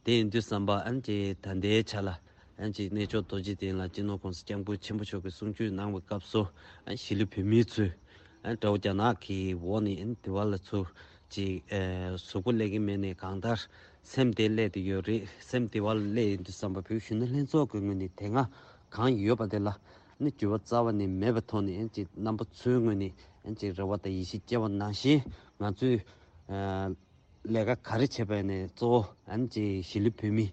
དེ་ཡིན་དུས་ཙམ་པ་ཨ་ཅིག་ད་ལྟའི་ཆ་ལ་ཨ་ཅིག་གནས་མཆོག་རྡོ་རྗེ་གདན་ལ་སྤྱི་ནོར་༸གོང་ས་༸སྐྱབས་མགོན་ཆེན་པོ་མཆོག་གིས་གསུང་ཆོས་གནང་བའི་སྐབས་སུ། ཨ་གཞིས་ལུས་བོད་མི་ཚོས་ཨ་དགྲ་བོ་རྒྱ་ནག་གི་འོག་ནས་ཨ་དེ་བ་ལ་ཚུར་ཅིག་ཨ་གཟུགས་པོ་སླེབས་ཀྱི་མེད་ནའི་གང་ལྟར་སེམས་དེ་སླེབས་བསྡད་ཡོད་རེད། སེམས་དེ་བ་ལ་སླེབས་ཡོང་དུས་ཙམ་པ་བོད་གཞོན་ནུ་ལྷན་ཚོགས་ཀྱི་ངོས་ནས་དེ་སྔ་གང་ཡོད་པ་དེ་ལ་ནི་འགྱུར་བ་རྩ་བ་ནས་མེད་པའི་ཐོག་ནས། ཨ་ཅིག་རྣམ་པ་ཚོའི་ངོས་ནས་ཨ་ཅིག་རེ་བ་དང་ཡིད་ཆེས་བསྐྱེད་པ་ནང་བཞིན། ང་ཚོས་ཨ་ལས་ཀ་ག་རེ་བྱས་པ་ཡིན་ནའི་གཙོ་བོ་ཨ་ཅིག་གཞིས་ལུས་བོད་མི་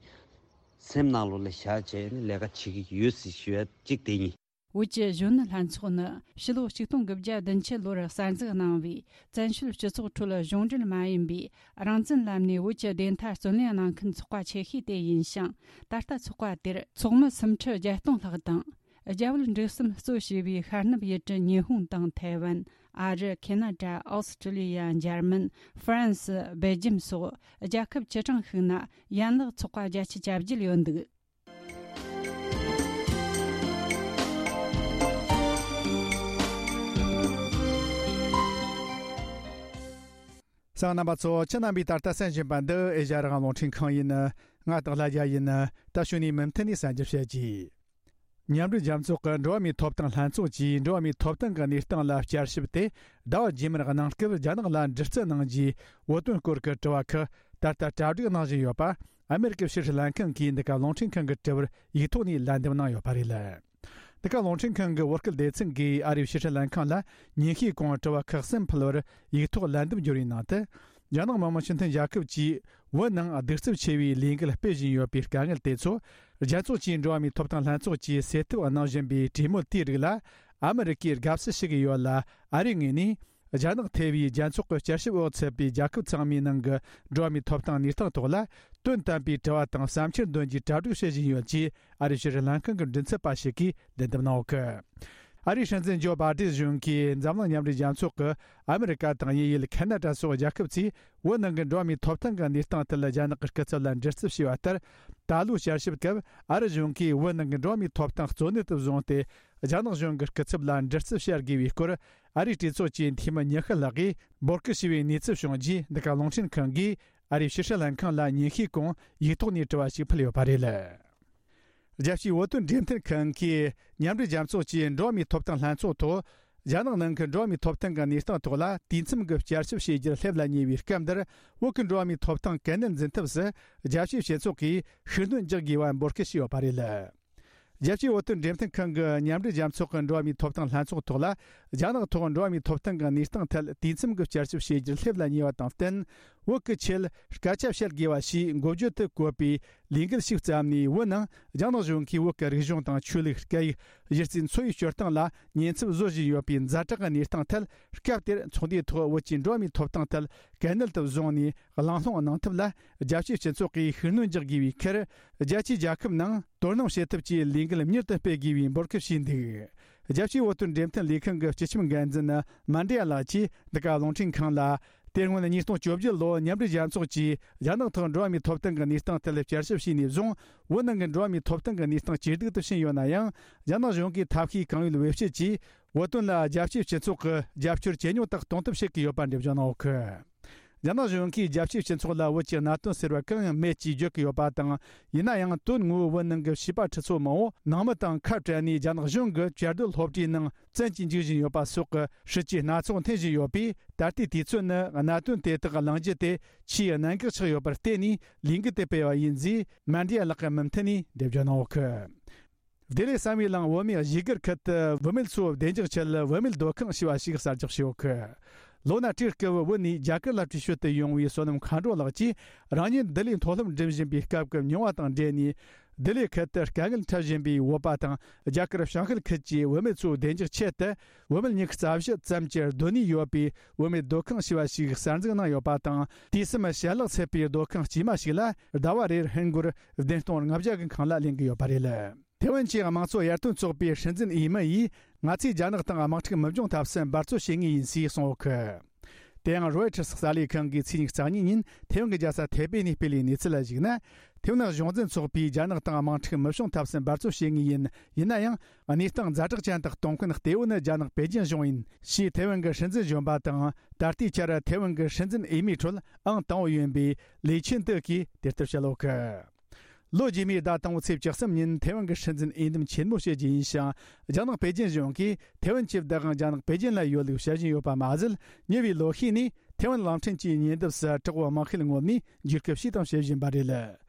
སེམས་ནང་ལོགས་ལ་བཞག་བྱས་ནས་ལས་ཀ་བྱེད་ཀྱི་ཡོད་ཟེར་ཞུ་ཡ་གཅིག་དེ་ཡིན། བོད་ཀྱི་གཞོན་ནུ་ལྷན་ཚོགས་ནི་ཕྱི་ལོ་ཆིག་སྟོང་དགུ་བརྒྱ་བདུན་ཅུ་ལོར་གསར་འཛུགས་གནང་བའི་བཙན་བྱོལ་སྤྱི་ཚོགས་ཁྲོད་གཞུང་འབྲེལ་མ་ཡིན་པའི་རང་བཙན་ལམ་ནས་བོད་ཀྱི་བདེན་མཐའ་རྩོད་ལེན་གནང་མཁན་ཚོགས་པ་ཆེ་ཤོས་དེ་ཡིན་ཞིང་། ད་ལྟ་ཚོགས་པ་དེར་ཚོགས་མི་སུམ་ཁྲི་བརྒྱད་སྟོང་ལྷག་དང་། རྒྱ་བོད་འབྲེལ་ཟམ་གཙོ་བྱས་པའི་ཤར་ནུབ་ཡུལ་གྲུ་ཉི་ཧོང་དང་ཐའེ་ཝན། ཨ་རི། ཁེ་ན་ཌ། ཨོ་སི་ཀྲི་ལི་ཡ། འཇར་མན། ཧྥ་རན་སི། སྦེལ་ཇམ་སོགས་རྒྱལ་ཁབ་བཅུ་གྲངས་ཤིག་ན་ཡན་ལག་ཚོགས་པ་བརྒྱད་ཅུ་གྱ་བརྒྱད་ཡོད་འདུག་གསན་མཁན་རྣམ་པ་ཚོ། ཁྱེད་རྣམ་པས་ད་ལྟ་གསན་བཞིན་པ་འདི་ཨེ་ཤ་ཡ་རང་དབང་རླུང་འཕྲིན་ཁང་ཡིན། ང་དང་ལྷ་རྒྱལ་ཡིན། ད་གཞུག་ནས་མུ་མཐུད་ནས་གསན་རྒྱུ་བྱེད་ཀྱི། མཉམ་འབྲེལ་རྒྱལ་ཚོགས་ཀྱི་འགྲོ་བ་མིའི་ཐོབ་ཐང་ལྷན་ཚོགས་ཀྱིས་འགྲོ་བ་མིའི་ཐོབ་ཐང་གི་གནས་སྟངས་ལ་བསྐྱར་ཞིབ་དེ་ཟླ་བ་རྗེས་མར་གནང་སྐབས་རྒྱ་ནག་ལ་འདྲི་རྩད་གནང་རྒྱུའི་བོད་དོན་སྐོར་གྱི་དྲི་བ་ཁག་ད་ལྟ་གྲ་སྒྲིག་གནང་བཞིན་ཡོད་པ། ཨ་མེ་རི་ཀའི་ཕྱི་སྲིད་ལྷན་ཁང་གིས་འདི་ག་རླུང་འཕྲིན་ཁང་གི་དྲི་བར་ཡིག་ཐོག་ནས་ལན་འདེབས་གནང་ཡོད་པ་རེད། འདི་ག་རླུང་འཕྲིན་ཁང་གི་བོད་སྐད་སྡེ་ཚན་གིས་ཨ་རིའི་ཕྱི་སྲིད་ལྷན་ཁང་ལ་ཉིན་ཤས་གོང་དྲི་བ་ཁག་གསུམ་ཕུལ་བར་ཡིག་ཐོག་ལན་འདེབས་བསྒྱུར་བའི་ནང་དུ། རྒྱ་ནག་མི་དམངས་སྤྱི་མཐུན་རྒྱལ་ཁབ་ཀྱིས་བོད་ནང་གདུག་རྩུབ་ཆེ་བའི་ལས་འགུལ་སྤེལ་བཞིན་ཡོད་པའི་དཀའ་ངལ་དེ་ཚོ། རྒྱལ་ཚོགས་ཀྱི་འགྲོ་བ་མིའི་ཐོབ་ཐང་ལྷན་ཚོགས་ཀྱིས་སེལ་ཐབས་གནང་བཞིན་པའི་གྲོས་མོལ་དེའི་རིགས་ལ་ཨ་མི་རི་ཀས་དགའ་བསུ་ཞུ་གི་ཡོད་ལ། ཨ་རིའི་ངོས་ནས་རྒྱ་ནག་ཐེ་བའི་རྒྱལ་ཚོགས་ཀྱི་བསྐྱར་ཞིབ་འོག་ཚུད་པའི་རྒྱལ་ཁབ་ཚང་མའི་ནང་གི་འགྲོ་བ་མིའི་ཐོབ་ཐང་གནས་སྟངས་ཐོག་ལ་དོན་དམ་པའི་དྲི་བ་དང་བསམ་འཆར་འདོན་རྒྱུའི་གྲ་སྒྲིག་བྱེད་བཞིན་ཡོད་ཅེས་ཨ་རིའི་ཕྱི་སྲིད་ལྷན་ཁང་གི་མགྲིན་ཚབ་པ་ཞིག་གིས་ལན་འདེབས་གནང་ཡོད་སྐད། ཨ་རིའི་སྲིད་འཛིན་ཇོ་བྷ་ཏིན་གཞུང་གིས་འཛམ་གླིང་མཉམ་འབྲེལ་རྒྱལ་ཚོགས་ཀྱི་ཨ་མི་རི་ཀ་དང་དབྱིན་ཡུལ། ཁ་ན་ཌ་སོགས་རྒྱལ་ཁབ་ཚོས་བོད་ནང་གི་འགྲོ་བ་མིའི་ཐོབ་ཐང་གི་གནས་སྟངས་ཐད་རྒྱ་ནག་གི་སྐུ་ཚབ་ལ་འདྲི་རྩད་བྱས་པ་ལྟར། ད་ལོའི་བསྐྱར་ཞིབ་སྐབས་ཨ་རི་གཞུང་གིས་བོད་ནང་གི་འགྲོ་བ་མིའི་ཐོབ་ཐང་གཙོ་གནད་དུ་བཟུང་སྟེ། རྒྱ་ནག་གཞུང་གི་སྐུ་ཚབ་ལ་འདྲི་རྩད་བྱ་དགོས་པའི་སྐོར། ཨ་རིའི་གྲོས་ཚོགས་ཀྱི་འཐུས་མི་ཉི་ཤུ་ལྷག་གིས་འབོད་སྐུལ་བྱས་པའི་གནས་ཚུལ་བྱུང་རྗེས། འདི་ག་རླུང་འཕྲིན་ཁང་གིས་ཨ་རིའི་ཕྱི་སྲིད་ལྷན་ཁང་ལ་ཉིན་ཤས་གོང་ཡིག་ཐོག་ནས་དྲི་བ་ཞིག་ཕུལ་ཡོད་པ་རེད། རྒྱལ་སྤྱིའི་བོད་དོན་འབྲེལ་མཐུད་ཁང་གིས་མཉམ་འབྲེལ་རྒྱལ་ཚོགས་ཀྱི་འགྲོ་བ་མིའི་ཐོབ་ཐང་ལྷན་ཚོགས་ཐོག་རྒྱ་ནག་ནང་གི་འགྲོ་བ་མིའི་ཐོབ་ཐང་གི་གནས་སྟངས་ཐོག་ལ་དུས་མཚམས་ཀྱི་བསྐྱར་ཞིབ་བྱེད་རྒྱུར་སླེབས་ལ་ཉེ་བའི་སྐབས་འདིར། བོད་ཀྱི་འགྲོ་བ་མིའི་ཐོབ་ཐང་གལ་གནད་འཛིན་ཐབས་སུ་རྒྱལ་སྤྱིའི་སྤྱི་ཚོགས་ཀྱིས་ཤུགས་སྣོན་རྒྱག་དགོས་པ་འབོད་སྐུལ་བྱས་ཡོད་པ་རེད། རྒྱལ་སྤྱིའི་བོད་དོན་འབྲེལ་མཐུད་ཁང་གི་མཉམ་འབྲེལ་རྒྱལ་ཚོགས་ཀྱི་འགྲོ་བ་མིའི་ཐོབ་ཐང་ལྷན་ཚོགས་ཐོག་ལ། རྒྱ་ནག་ཐོག་འགྲོ་བ་མིའི་ཐོབ་ཐང་གི་གནས་སྟངས་ཐད་དུས་མཚམས་ཀྱི་བསྐྱར་ཞིབ་བྱེད་རྒྱུར་སླེབས་ལ་ཉེ་བ་དང་བསྟུན། བོད་ཀྱི་ཆེད་སྐད་ཆ་བཤད་དགོས་པ་ཞེས་འགོ་བརྗོད་དུ་བཀོད་པའི་ལས་འགུལ་ཞིག་བརྩམས་ནས། བོད་ནང་རྒྱ་ནག་གཞུང་གིས་བོད་ཀྱི་རིག་གཞུང་དང་ཆོས་ལུགས། སྐད་ཡིག། གཞི་རྩའི་འཚོ་བའི་སྤྱོད་སྟངས་ལ་ཉེན་ཚབས་བཟོ་བཞིན་ཡོད་པའི་ཛ་དྲག་གི་གནས་སྟངས་ཐད། སྐབས་དེར་ཚོགས་འདུའི་ཐོག་བོད་ཀྱི་འགྲོ་བ་མིའི་ཐོབ་ཐང་ཐད་གལ་གནད་དུ་བཟུང་ནས་གླེང་སློང་གནང་ཐབས་ལ། རྒྱལ་སྤྱིའི་སྤྱི་ཚོགས་ཀྱིས་ཤུགས་སྣོན་རྒྱག་དགོས་པའི་ཁར། རྒྱལ་སྤྱིའི་རྒྱལ་ཁབ་ནང་དོ་སྣང་བྱེད་ཐབས་ཀྱི་ལས་འགུལ་མྱུར་དུ་སྤེལ་དགོས་པའི་འབོད་སྐུལ་བྱས་འདུག་རྒྱལ་སྤྱིའི་བོད་དོན་འབྲེལ་མཐུད་ལས་ཁང་གི་སྤྱི་ཁྱབ་འགན་འཛིན་མན་ཌི་ཡ་ལགས་ཀྱིས་འདི་ག་རླུང་འཕྲིན་ཁང་ལ། དེ་སྔོན་ཉིས་སྟོང་བཅོ་བརྒྱད་ལོར་མཉམ་འབྲེལ་རྒྱལ་ཚོགས་ཀྱིས་རྒྱ་ནག་ཐོག་འགྲོ་བ་མིའི་ཐོབ་ཐང་གི་གནས་སྟངས་ཐད་བསྐྱར་ཞིབ་བྱས་ནས་བཟུང་། བོད་ནང་གི་འགྲོ་བ་མིའི་ཐོབ་ཐང་གི་གནས་སྟངས་ཇེ་སྡུག་ཏུ་ཕྱིན་ཡོད་ན་ཡང་། རྒྱ་ནག་གཞུང་གིས་ཐབས་ཤེས་གང་ཡོད་བེད་སྤྱད་ཀྱིས། བོད་དོན་ལ་རྒྱལ་སྤྱིའི་སྤྱི་ཚོགས་ཀྱི་རྒྱབ་སྐྱོར་ཇེ་ཉུང་དུ་གཏོང་ཐབས་བྱེད་ཀྱི་ཡོད་པ་འགྲེལ་བརྗོད་གནང་ཡོད་སྐད། རྒྱ་ནག་གཞུང་གིས་རྒྱལ་སྤྱིའི་སྤྱི་ཚོགས་ལ་བོད་ཀྱི་གནད་དོན་ཟེར་བ་གང་ཡང་མེད་ཅེས་བརྗོད་ཀྱི་ཡོད་པ་དང་། ཡིན་ན་ཡང་། དོན་དངོས་པོ་བོད་ནང་གི་བྱིས་པ་ཁྲི་ཚོ་མང་བོ་ནང་མི་དང་ཁ་བྲལ་ནས་རྒྱ་ནག་གཞུང་གི་བཅའ་སྡོད་སློབ་གྲྭའི་ནང་བཙན་གྱིས་འཇུག་བཞིན་ཡོད་པ་སོགས་ཀྱི་སྲིད་ཇུས་སྣ་ཚོགས་འཐེན་བཞིན་ཡོད་པས། ད་ལྟའི་དུས་ཚོད་ནི་གནད་དོན་དེ་དག་གླེང་རྒྱུ་དེ་ཆེས་གནད་འགག་ཆགས་ཡོད་པར་བརྟེན་ནས་ལས་འགུལ་དེ་སྤེལ་བ་ཡིན་ཞེས་མན་ཌི་ཡ་ལགས་ཀྱིས་མུ་མཐུད་ནས་འགྲེལ་བརྗོད་གནང་ཡོད་སྐད། བདེ་ལེགས་བསམ་ཡས་གླིང་བོད་མིའི་གཞིས་སྒར་ཁུལ་དུ་བུད་མེད་ཚོའི་བདེ་འཇགས་ཆེད་བུད་མེད་སྡོད་ཁང་ཞེས་པ་ཞིག་གསར་རྒྱག་བྱས་ཡོད་སྐད། ལོ་ན་ཁྲིའི་སྐབས་བོད་ནས་རྒྱ་གར་ལ་བྲོས་བྱོལ་དུ་ཡོང་བའི་བསོད་ནམས་མཁའ་འགྲོ་ལགས་ཀྱིས། རང་ཉིད་བདེ་ལེགས་མཐོ་སློབ་འགྲིམ་བཞིན་པའི་སྐབས་ཀྱི་མྱོང་བ་དང་འབྲེལ་ནས། བདེ་ལེགས་ཁུལ་དུ་དཀའ་ངལ་འཕྲད་བཞིན་པའི་བོད་པ་དང་། རྒྱ་གར་བྱང་ཤར་ཁུལ་གྱི་བུད་མེད་ཚོའི་བདེ་འཇགས་ཆེད་དུ། བུད་མེད་ཉི་ཤུ་རྩ་བཞི་ཙམ་གྱི་སྡོད་གནས་ཡོད་པའི་བུད་མེད་སྡོད་ཁང་ཞེས་པ་ཞིག་གསར་འཛུགས་གནང་ཡོད་པ་དང་། དུས་གསུམ་ཞལ་ལག་ཚད་པའི་སྡོད་ཁང་དཀྱུས་མ་ཞིག་ལ་ཟླ་བ་རེར་ཧིན་སྒོར་བདུན་སྟོང་ལྔ་བརྒྱ་གི་ཁང་གླ་ལེན་གྱི་ཡོད་པ་རེད། ཐེ་ཝན་གྱི་དམངས་གཙོ་ཡར་ཐོན་ཚོགས་པའི་སྲིད་འཛིན་འོས་མི་ཡིས། ང་ཚོས་རྒྱ་ནག་དང་དམག་འཁྲུག་མི་འབྱུང་ཐབས་སུ་འབད་རྩོལ་བྱེད་ངེས་ཡིན་ཞེས་གསུངས་ཡོད་སྐད། དེ་ཡང་རོའི་ཊར་གསར་ལས་ཁང་གིས་ཚེས་ཉི་ཤུ་རྩ་གཉིས་ཉིན་ཐེ་ཝན་གྱི་རྒྱལ་ས་ཐེ་པེ་ནས་སྤེལ་བའི་གནས་ཚུལ་ལ་གཞིགས་ན། ཐེ་ཝན་གཞུང་འཛིན་ཚོགས་པས་རྒྱ་ནག་དང་དམག་འཁྲུག་མི་བྱུང་ཐབས་སུ་འབད་རྩོལ་བྱེད་ངེས་ཡིན། ཡིན་ན་ཡང་། གནས་སྟངས་ཛ་དྲག་ཅན་དུ་གཏོང་མཁན་གཏེ་བོ་ནི་རྒྱ་ནག་པེ་ཅིན་གཞུང་ཡིན་ཞེས་ཐེ་ཝན་གྱི་སྲིད་འཛིན་གཞོན་པ་དང་། ད་ལྟའི་ཆར་ཐེ་ཝན་གྱི་སྲིད་འཛིན་འོས་མིའི་ཁྲོད་ཨང་དང་པོ་ཡིན་པའི་ལི་ཆིན་ཏུ་གིས་དེ་ལྟར་བཤད་ཡོད་སྐད། ལོ་རྗེས་མའི་ཟླ་དང་པོའི་ཚེས་བཅུ་གསུམ་ཉིན་ཐེ་ཝན་གྱི་སྲིད་འཛིན་འོས་འདེམས་ཆེན་མོ་བྱེད་རྒྱུ་ཡིན་ཞིང་། རྒྱ་ནག་པེ་ཅིན་གཞུང་གིས་ཐེ་ཝན་གྱི་བདག་དབང་རྒྱ་ནག་པེ་ཅིན་ལ་ཡོད་ལུགས་བཤད་བཞིན་ཡོད་པ་མ་ཟད། ཉེ་བའི་ལོ་ཤས་ནས་ཐེ་ཝན་གླིང་ཕྲན་གྱི་ཉེ་འདབས་སུ་དྲག་པོའི་དམག་ཤེད་ངོམ་ནས་འཇིགས་སྐུལ་བྱས་དང་བྱེད་བཞིན་པ་རེད།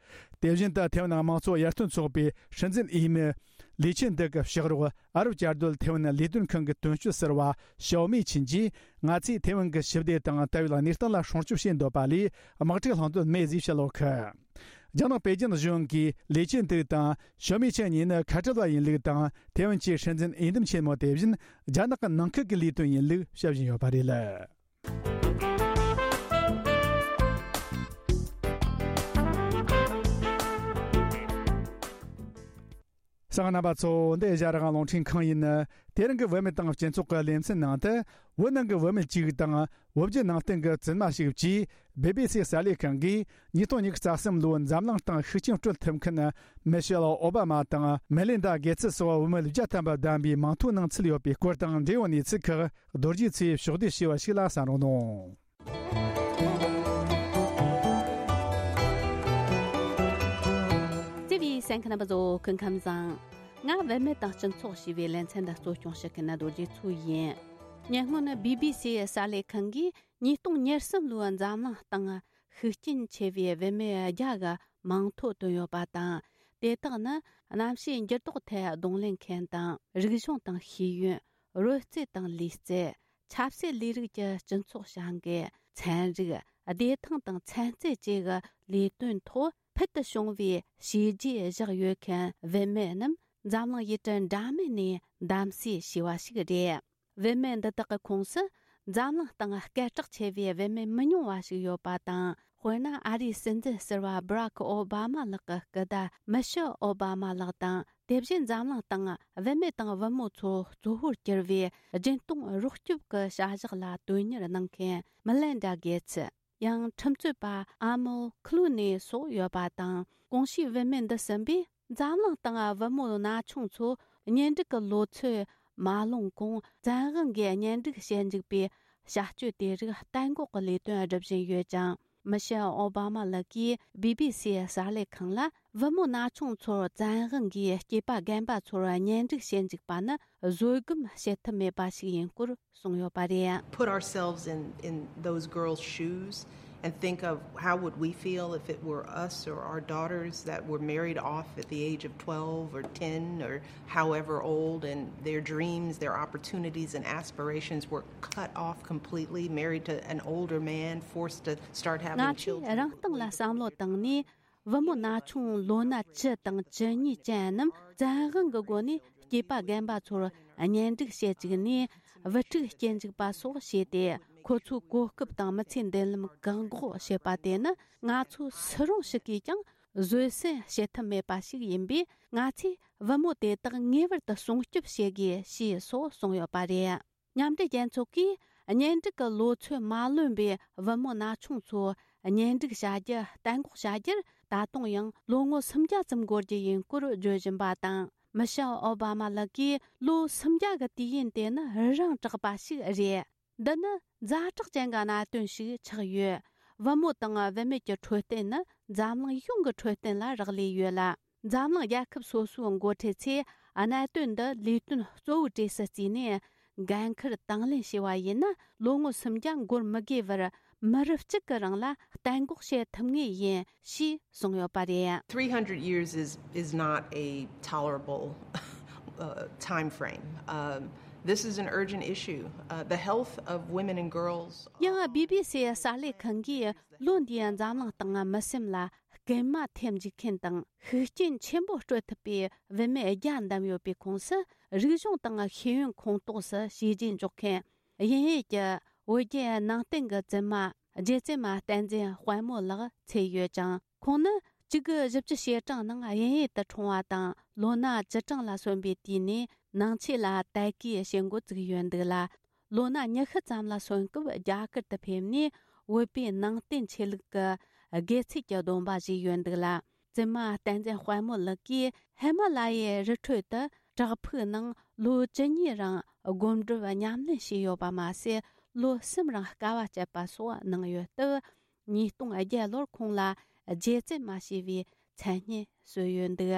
དེ་བཞིན་དུ་ཐེ་ཝན་དམངས་གཙོ་ཡར་ཐོན་ཚོགས་པའི་སྲིད་འཛིན་འོས་མི་ལི་ཆིན་ཏུ་གི་ཕྱག་རོགས་ཨ་རབ་བཅའ་སྡོད་ཐེ་ཝན་ལས་དོན་ཁང་གི་དོན་གཅོད་ཟུར་པ་ཞའོ་མེ་ཆིན་གྱིས། ང་ཚོས་ཐེ་ཝན་གྱི་ཞི་བདེ་དང་ལྟ་བའི་གནས་སྟངས་ལ་སྲུང་སྐྱོབ་བྱེད་འདོད་པ་ལས་དམག་འཁྲུག་བསླང་འདོད་མེད་ཅེས་བཤད་ཡོད་སྐད། རྒྱ་ནག་པེ་ཅིན་གཞུང་གིས་ལི་ཅིན་ཏུའུ་དང་ཞོ་མི་ཆན་གཉིས་ནི་ཁ་བྲལ་བ་ཡིན་ལུགས་དང་། ཐེ་ཝན་གྱི་སྲིད་འཛིན་འོས་འདེམས་ཆེན་མོ་དེ་བཞིན་རྒྱ་ནག་གི་ནང་ཁུལ་གྱི་ལས་དོན་ཡིན་ལུགས་བཤད་བཞིན་ཡོད་པ་རེད། གསན་མཁན་རྣམ་པ་ཚོ། འདི་ཨེ་ཤ་ཡ་རང་དབང་རླུང་འཕྲིན་ཁང་ཡིན། དེ་རིང་གི་བུད་མེད་དང་སྤྱི་ཚོགས་ཀྱི་ལེ་ཚན་ནང་དུ། བོད་ནང་གི་བུད་མེད་ཅིག་དང་བོད་བརྒྱུད་ནང་བསྟན་གྱི་བཙུན་མ་ཞིག་བཅས་བི་བི་སི་གསར་ལས་ཁང་གིས་ཉིས་སྟོང་ཉི་ཤུ་རྩ་གསུམ་ལོའི་འཛམ་གླིང་སྟེང་ཤུགས་རྐྱེན་སྤྲོད་ཐུབ་མཁན་མི་ཤེལ་ཨོ་བྷ་མ་དང་མེ་ལིན་ཌ་གེ་ཚི་སོགས་བུད་མེད་བརྒྱ་ཐམ་པ་བདམས་པའི་མིང་ཐོའི་ནང་ཚུད་ཡོད་པའི་སྐོར་དང་འབྲེལ་ཡོད་གནས་ཚུལ་ཁག་རྡོ་རྗེ་ཚེ་ཕྱོགས་བསྡུས་བྱས་པ་ཞིག་ལ་གསན་རོགས་གནང་། བརྩེ་བའི་གསན་མཁན་རྣམ་པ་ཚོ། སྐུ་ཁམས་བཟང་། ང་བུད་མེད་དང་སྤྱི་ཚོགས་ཞེས་པའི་ལེ་ཚན་འདི་གཙོ་སྐྱོང་བྱེད་མཁན་རྡོ་རྗེ་མཚོ་ཡིན། ཉེ་སྔོན་བི་བི་སི་གསར་ལས་ཁང་གིས་ཉིས་སྟོང་ཉེར་གསུམ་ལོའི་འཛམ་གླིང་སྟེང་ཤུགས་རྐྱེན་ཆེ་བའི་བུད་མེད་བརྒྱ་གི་མིང་ཐོ་བཏོན་ཡོད་པ་དང་། དེ་དག་ནི་གནམ་གཤིས་འགྱུར་ལྡོག་ཐད་གདོང་ལེན་མཁན་དང་། རིག་གཞུང་དང་ཤེས་ཡོན། རོལ་རྩེད་དང་ལུས་རྩལ། ཆབ་སྲིད་ལས་རིགས་ཀྱི་སྤྱི་ཚོགས་བྱ་འགུལ། ཚན་རིག། བདེ་ཐང་དང་ཚན་རྩལ་བཅས་ཀྱི་ལས་དོན་ཐོག་ཕུལ་དུ་བྱུང་བའི་བྱས་རྗེས་བཞག་ཡོད་མཁན་བུད་མེད་རྣམས་འཛམ་གླིང་ཡུལ་གྲུ་འདྲ་མིན་ནས་འདེམས་གསེས་བྱས་པ་ཞིག་རེད། བུད་མེད་འདི་དག་གི་ཁོངས་སུ་འཛམ་གླིང་སྟེང་སྐད་གྲགས་ཆེ་བའི་བུད་མེད་མི་ཉུང་བ་ཞིག་ཡོད་པ་དང་། དཔེར་ན། ཨ་རིའི་སྲིད་འཛིན་ཟུར་པ་Barack Obama ལགས་ཀྱི་སྐུ་ཟླ་Michelle Obama ལགས་དང་། དེ་བཞིན་འཛམ་གླིང་སྟེང་བུད་མེད་དང་བུ་མོ་ཚོ་གཙོ་བོར་གྱུར་བའི་སྦྱིན་གཏོང་རོགས་སྐྱོབ་ཀྱི་བྱ་གཞག་ལ་དོན་གཉེར་གནང་མཁན་Melinda Gates། ཡང་ཁྲིམས་རྩོད་པ་Amal Clooney་སོགས་ཡོད་པ་དང་། གོང་ཞུས་བུད་མེད་འདི་གསུམ་པས་འཛམ་གླིང་སྟེང་བུ་མོ་ན་ཆུང་ཚོ་གཉེན་སྒྲིག་གི་ལོ་ཚོད་མ་ལོན་གོང་བཙན་དབང་གིས་གཉེན་སྒྲིག་བྱེད་འཇུག་པའི་བྱ་སྤྱོད་དེ་རིགས་གཏན་འགོག་གི་ལས་དོན་སྒྲུབ་བཞིན་ཡོད་ཅིང་། མི་ཤེལ་ཨོ་བྷ་མ་ལགས་ཀྱིས་བི་བི་སི་གསར་ལས་ཁང་ལ། བུ་མོ་ན་ཆུང་ཚོར་བཙན་དབང་གིས་སྐྱེས་པ་རྒན་པ་ཚོར་གཉེན་སྒྲིག་བྱེད་འཇུག་པ་ནི་བཟོད་སྒོམ་བྱེད་ཐབས་མེད་པ་ཞིག་ཡིན་སྐོར་གསུངས་ཡོད་པ་རེད། Put ourselves in, in those girls' shoes and think of how would we feel if it were us or our daughters that were married off at the age of twelve or ten or however old, and their dreams, their opportunities and aspirations were cut off completely, married to an older man, forced to start having children. ང་ཚོས་རང་སྟེང་ལ་བསམ་བློ་བཏང་ནས། བུ་མོ་ན་ཆུང་ལོ་ན་བཅུ་དང་བཅུ་གཉིས་ཅན་རྣམས་བཙན་དབང་གི་སྒོ་ནས་སྐྱེས་པ་རྒན་པ་ཚོར་གཉེན་སྒྲིག་བྱེད་བཅུག་ནས། བུ་ཕྲུག་སྐྱེ་འཇུག་པ་སོགས་བྱས་ཏེ། ཁོ་ཚོའི་གོ་སྐབས་དང་མི་ཚེའི་མདུན་ལམ་བཀག་འགོག་བྱེད་པ་དེ་ནི། ང་ཚོ་སུ་རུང་ཞིག་གིས་ཀྱང་བཟོད་བསྲན་བྱེད་ཐབས་མེད་པ་ཞིག་ཡིན་པས། ང་ཚོས་བུ་མོ་དེ་དག་ངེས་པར་དུ་སྲུང་སྐྱོབ་བྱེད་དགོས་ཞེས་སོགས་གསུངས་ཡོད་པ་རེད། མཉམ་འབྲེལ་རྒྱལ་ཚོགས་ཀྱིས་གཉེན་སྒྲིག་གི་ལོ་ཚོད་མ་ལོན་པའི་བུ་མོ་ན་ཆུང་ཚོ་གཉེན་སྒྲིག་བྱ་རྒྱུ་གཏན་འགོག་བྱ་རྒྱུར། ད་དུང་ཡང་ལོ་ངོ་སུམ་བརྒྱ་ཙམ་འགོར་རྒྱུ་ཡིན་སྐོར་བརྗོད་བཞིན་པ་དང་། མི་ཤེལ་ཨོ་བྷ་མ་ལགས་ཀྱིས་ལོ་སུམ་བརྒྱ་གི་དུས་ཡུན་དེ་ནི་རི་རང་དྲག་པ་ཞིག་རེད། འདི་ནི་ཛ་དྲག་ཅན་གྱི་གནད་དོན་ཞིག་ཆགས་ཡོད། བུ་མོ་དང་བུད་མེད་ཀྱི་འཕྲོད་བསྟེན་ནི་འཛམ་གླིང་ཡོངས་ཀྱི་འཕྲོད་བསྟེན་ལ་རག་ལས་ཡོད་ལ། འཛམ་གླིང་རྒྱལ་ཁབ་སོ་སོའི་འགོ་ཁྲིད་ཚོས་གནད་དོན་འདི་ལས་དོན་གཙོ་བོའི་གྲས་སུ་བརྩིས་ནས། འགན་འཁུར་དང་ལེན་བྱས་པ་ཡིན་ན། ལོ་ངོ་སུམ་བརྒྱ་འགོར་མི་དགོས་པར་མི་རབས་གཅིག་གི་རིང་ལ་གཏན་འགོག་བྱེད་ཐུབ་ངེས་ཡིན་ཞེས་གསུངས་ཡོད་པ་རེད། Three hundred years is, is not a tolerable uh, time frame. Um, this is an urgent issue. Uh, the health of women and girls. ཡང་བི་བི་སི་གསར་ལས་ཁང་གིས་ལོ་འདིའི་འཛམ་གླིང་སྟེང་མི་སེམས་ལ་སྐུལ་མ་ཐེབས་འཇུག་མཁན་དང་ཤུགས་རྐྱེན་ཆེན་པོ་སྤྲོད་ཐུབ་པའི་བུད་མེད་བརྒྱ་བདམས་ཡོད་པའི་ཁོངས་སུ། རིག་གཞུང་དང་ཤེས་ཡོན་ཁོངས་གཏོགས་སུ་བྱས་རྗེས་འཇོག་མཁན་དབྱིན་ཡུལ་གྱི་བོད་བརྒྱུད་ནང་བསྟན་གྱི་བཙུན་མ་རྗེ་བཙུན་མ་བསྟན་འཛིན་དཔལ་མོ་ལགས་ཚུད་ཡོད་ཅིང་། ཁོང་ནི་གཅིག་དགུ་བཞི་བཅུ་ཞེ་གྲངས་ནང་དབྱིན་ཡུལ་དུ་འཁྲུངས་པ་དང་། ལོ་ན་བཅུ་གྲངས་ལ་སོན་པའི་དུས་ནས་ནང་ཆོས་ལ་དད་གུས་བྱེད་འགོ་བཙུགས་ཡོད་འདུག་ལ། ལོ་ན་ཉི་ཤུ་ཙམ་ལ་སོན་སྐབས་རྒྱ་གར་དུ་ཕེབས་ནས། བོད་པའི་ནང་བསྟན་ཆོས་ལུགས་ཀྱི་དགེ་ཚུལ་གྱི་སྡོམ་པ་བཞེས་ཡོད་འདུག་ལ། བཙུན་མ་བསྟན་འཛིན་དཔལ་མོ་ལགས་ཀྱིས་ཧི་མ་ལ་ཡའི་རི་ཁྲོད་དུ་བྲག་ཕུག་ནང་ལོ་བཅུ་གཉིས་རིང་སྒོམ་སྒྲུབ་ཉམས་ལེན་བྱས་ཡོད་པ་མ་ཟད། ལོ་གསུམ་རིང་དཀའ་བ་སྤྱད་པ་སོགས་གནང་ཡོད་སྟབས། ཉིས་སྟོང་བརྒྱད་ལོར་ཁོང་ལ་རྗེ་བཙུན་མ་ཞེས་པའི་མཚན་སྙན་གསོལ་ཡོད་འདུག།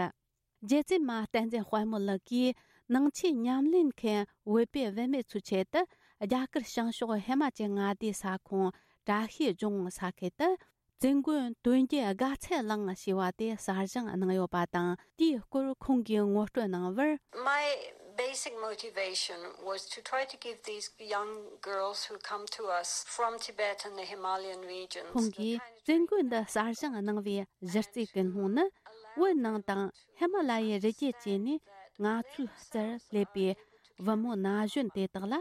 རྗེ་བཙུན་མ་བསྟན་འཛིན་དཔལ་མོ་ལགས་ཀྱིས་ནང་ཆོས་ཉམས་ལེན་མཁན་བོད་པའི་བུད་མེད་ཚོའི་ཆེད་དུ། རྒྱ་གར་བྱང་ཕྱོགས་ཧི་མ་ཅལ་མངའ་སྡེའི་ས་ཁོངས་བཀྲ་ཤིས་ལྗོངས་ས་ཁུལ་དུ། བཙུན་དགོན་དོན་བརྒྱུད་དགའ་ཚལ་གླིང་ཞེས་པ་དེ་གསར་བཞེངས་གནང་ཡོད་པ་དང་། དེའི་སྐོར་ཁོང་གིས་ངོ་སྤྲོད་གནང་བར། My basic motivation was to try to give these young girls who come to us from Tibet and the Himalayan regions ཁོང་གིས་བཙུན་དགོན་འདི་གསར་བཞེངས་གནང་བའི་གཞི་རྩའི་ཀུན་སློང་ནི། བོད་ནང་དང་ཧི་མ་ལ་ཡའི་རི་རྒྱུད་བཅས་ནས་ང་ཚོའི་རྩར་སླེབས་པའི་བུ་མོ་ན་གཞོན་དེ་དག་ལ་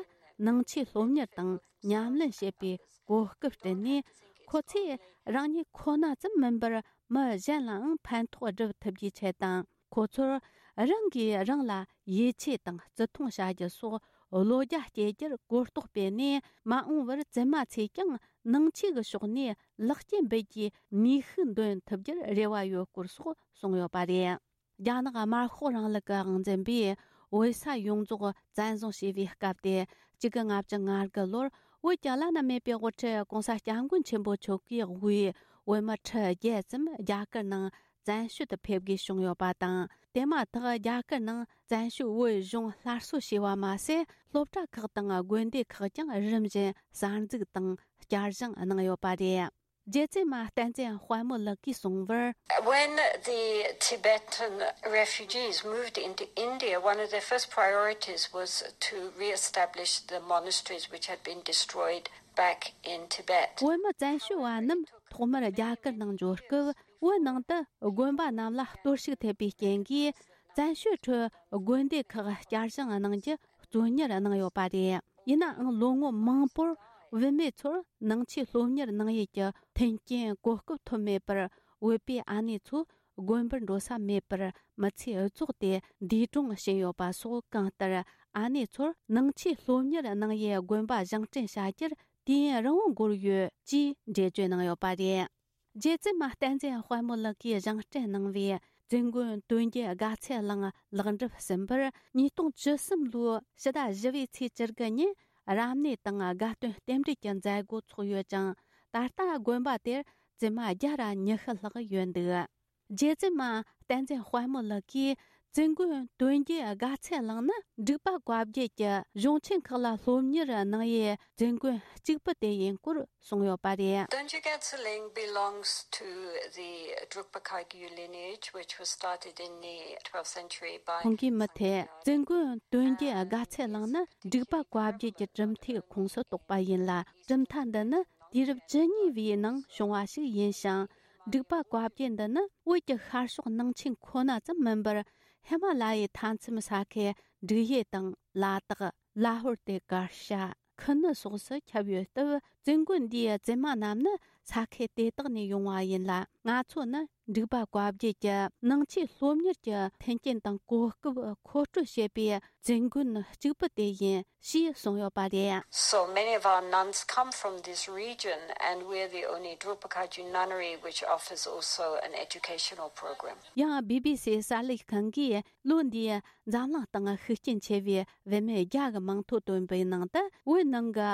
ནང་ཆོས་སློབ་གཉེར་དང་ཉམས་ལེན་བྱེད་པའི་གོ་སྐབས་བསྐྲུན་ནས། ཁོ་ཚོས་རང་ཉིད་ཁོ་ན་ཙམ་མིན་པར་མི་གཞན་ལའང་ཕན་ཐོགས་སྒྲུབ་ཐུབ་རྒྱུའི་ཆེད་དང་། ཁོ་ཚོར་རང་གིས་རང་ལ་ཡིད་ཆེས་དང་བརྩི་མཐོང་བྱ་རྒྱུ་སོགས་བློ་རྒྱ་སྐྱེད་རྒྱུར་གོ་རྟོགས་སྤེལ་ནས། མ་འོངས་པར་བཙུན་མ་ཚོས་ཀྱང་ནང་ཆོས་ཀྱི་ཕྱོགས་ནས་ལེགས་སྐྱེས་འབུལ་རྒྱུའི་ནུས་ཤུགས་འདོན་ཐུབ་རྒྱུར་རེ་བ་ཡོད་སྐོར་སོགས་གསུངས་ཡོད་པ་རེད། རྒྱ་ནག་དམར་ཤོག་རིང་ལུགས་ཀྱི་དབང་འཛིན་པས་བོད་ས་ཡོངས་རྫོགས་བཙན་བཟུང་བྱས་པའི་སྐབས་ཏེ། ཆིག་སྟོང་དགུ་བརྒྱ་ལྔ་བཅུ་ང་དགུ་ལོར་བོད་ཀྱི་བླ་ན་མེད་པའི་དབུ་ཁྲིད་༸གོང་ས་༸སྐྱབས་མགོན་ཆེན་པོ་མཆོག་གིས་དབུས་བོད་མི་ཁྲི་བརྒྱད་ཙམ་རྒྱ་གར་ནང་བཙན་བྱོལ་དུ་ཕེབས་དགོས་བྱུང་ཡོད་པ་དང་། དེ་མ་ཐག་རྒྱ་གར་ནང་བཙན་བྱོལ་བོད་གཞུང་སླར་གསོ་བྱས་པ་མ་ཟད། སློབ་གྲྭ་ཁག་དང་དགོན་སྡེ་ཁག་ཀྱང་རིམ་བཞིན་གསར་འཛུགས་དང་བསྐྱར་བཞེངས་གནང་ཡོད་པ་རེད། རྗེ་བཙུན་མ་བསྟན་འཛིན་དཔལ་མོ་ལགས་ཀྱིས་གསུངས་པར། When the Tibetan refugees moved into India, one of their first priorities was to re-establish the monasteries which had been destroyed back in Tibet. བོད་མི་བཙན་བྱོལ་བ་རྣམས་ཐོག་མར་རྒྱ་གར་ནང་འབྱོར་སྐབས། བོད་ནང་དུ་དགོན་པ་རྣམས་ལ་གཏོར་བཤིག་ཐེབས་པའི་རྐྱེན་གྱིས། བཙན་བྱོལ་ཁྲོད་དགོན་སྡེ་ཁག་བསྐྱར་བཞེངས་གནང་རྒྱུ་གཙོ་གཉེར་གནང་ཡོད་པ་རེད། ཡིན་ནའང་ལོ་ངོ་མང་པོར་བུད་མེད་ཚོར་ནང་ཆོས་སློབ་གཉེར་གནང་ཡུལ་གྱི་མཐུན་རྐྱེན་གོ་སྐབས་ཐོབ་མེད་པར། བོད་པའི་ཨ་ནེ་ཚོ་དགོན་པར་འགྲོ་ས་མེད་པར། མི་ཚེ་འུ་ཚོགས་ཏེ་འདས་གྲོངས་ཕྱིན་ཡོད་པ་སོགས། གང་ལྟར་ཨ་ནེ་ཚོར་ནང་ཆོས་སློབ་གཉེར་གནང་ཡུལ་དགོན་པ་བཞེངས་སྐྲུན་བྱ་རྒྱུར་དུས་ཡུན་རིང་བོ་འགོར་ཡོད་ཅེས་འགྲེལ་བརྗོད་གནང་ཡོད་པ་རེད། རྗེ་བཙུན་མ་བསྟན་འཛིན་དཔལ་མོ་ལགས་ཀྱིས་བཞེངས་སྐྲུན་གནང་བའི་བཙུན་དགོན་དོན་བརྒྱུད་དགའ་ཚལ་གླིང་ལེགས་འགྲུབ་ཟིན་པར། ཉིས་སྟོང་བཅུ་གསུམ་ལོའི་ཕྱི་ཟླ་བཞི་པའི་ཚེས་བཅུ་དགུ་ཉིན་རབ་གནས་དང་དགའ་སྟོན་རྟེན་འབྲེལ་གྱི་མཛད་སྒོ་ཚོགས་ཡོད་ཅིང་། ད་ལྟ་དགོན་པ་དེར་བཙུན་མ་བརྒྱ་ར་ཉི་ཤུ་ལྷག་ཡོད་འདུག། རྗེ་བཙུན་མ་བསྟན་འཛིན་དཔལ་མོ་ལགས་ཀྱིས། བཙུན་དགོན་དོན་བརྒྱུད་དགའ་ཚལ་གླིང་ནི་འབྲུག་པ་བཀའ་བརྒྱུད་ཀྱི་གཞུང་ཆེན་ཁག་ལ་སློབ་གཉེར་གནང་ཡུལ་བཙུན་དགོན་གཅིག་པུ་དེ་ཡིན་སྐོར་གསུངས་ཡོད་པ་རེད། Donjugad Tsaling belongs to the Drukpa Kagyu lineage, which was started in the twelfth century by ཁོང་གིས་མུ་མཐུད། བཙུན་དགོན་དོན་བརྒྱུད་དགའ་ཚལ་གླིང་ནི་འབྲུག་པ་བཀའ་བརྒྱུད་ཀྱི་གྲུབ་མཐའི་ཁོངས་སུ་གཏོགས་པ་ཡིན་ལ། གྲུབ་མཐའ་འདི་ནི་དུས་རབས་བཅུ་གཉིས་པའི་ནང་བྱུང་བ་ཞིག་ཡིན་ཞིང་། འབྲུག་པ་བཀའ་བརྒྱུད་འདི་ནི་བོད་ཀྱི་ཤར་ཕྱོགས་ནང་ཆེན་ཁོ་ན་ཙམ་མིན་པར། ཧི་མ་ལ་ཡའི་མཐའ་མཚམས་ས་ཁུལ་འབྲུག་ཡུལ་དང་ལ་དྭགས། ལ་ཧོར་ཏེ་ཀར་ཤ། ཁུ་ནུ་སོགས་སུ་ཁྱབ་ཡོད་སྟབས། བཙུན་དགོན་འདིའི་བཙུན་མ་རྣམས་ནི་ས་ཁུལ་དེ་དག་ནས་ཡོང་བ་ཡིན་ལ། ང་ཚོ་ནི་འབྲུག་པ་བཀའ་བརྒྱུད་ཀྱི་ནང་ཆོས་སློབ་གཉེར་གྱི་མཐུན་རྐྱེན་དང་གོ་སྐབས་མཁོ་སྤྲོད་བྱེད་པའི་བཙུན་དགོན་གཅིག་པུ་དེ་ཡིན། ཞེས་གསུངས་ཡོད་པ་རེད། So many of our nuns come from this region, and we're the only Drukpa Kagyu nunnery which offers also an educational program. ཡང་བི་བི་སི་གསར་ལས་ཁང་གིས་ལོ་འདིའི་འཛམ་གླིང་སྟེང་ཤུགས་རྐྱེན་ཆེ་བའི་བུད་མེད་བརྒྱ་གི་མིང་ཐོ་བཏོན་པའི་ནང་དུ། བོད་ནང་གི་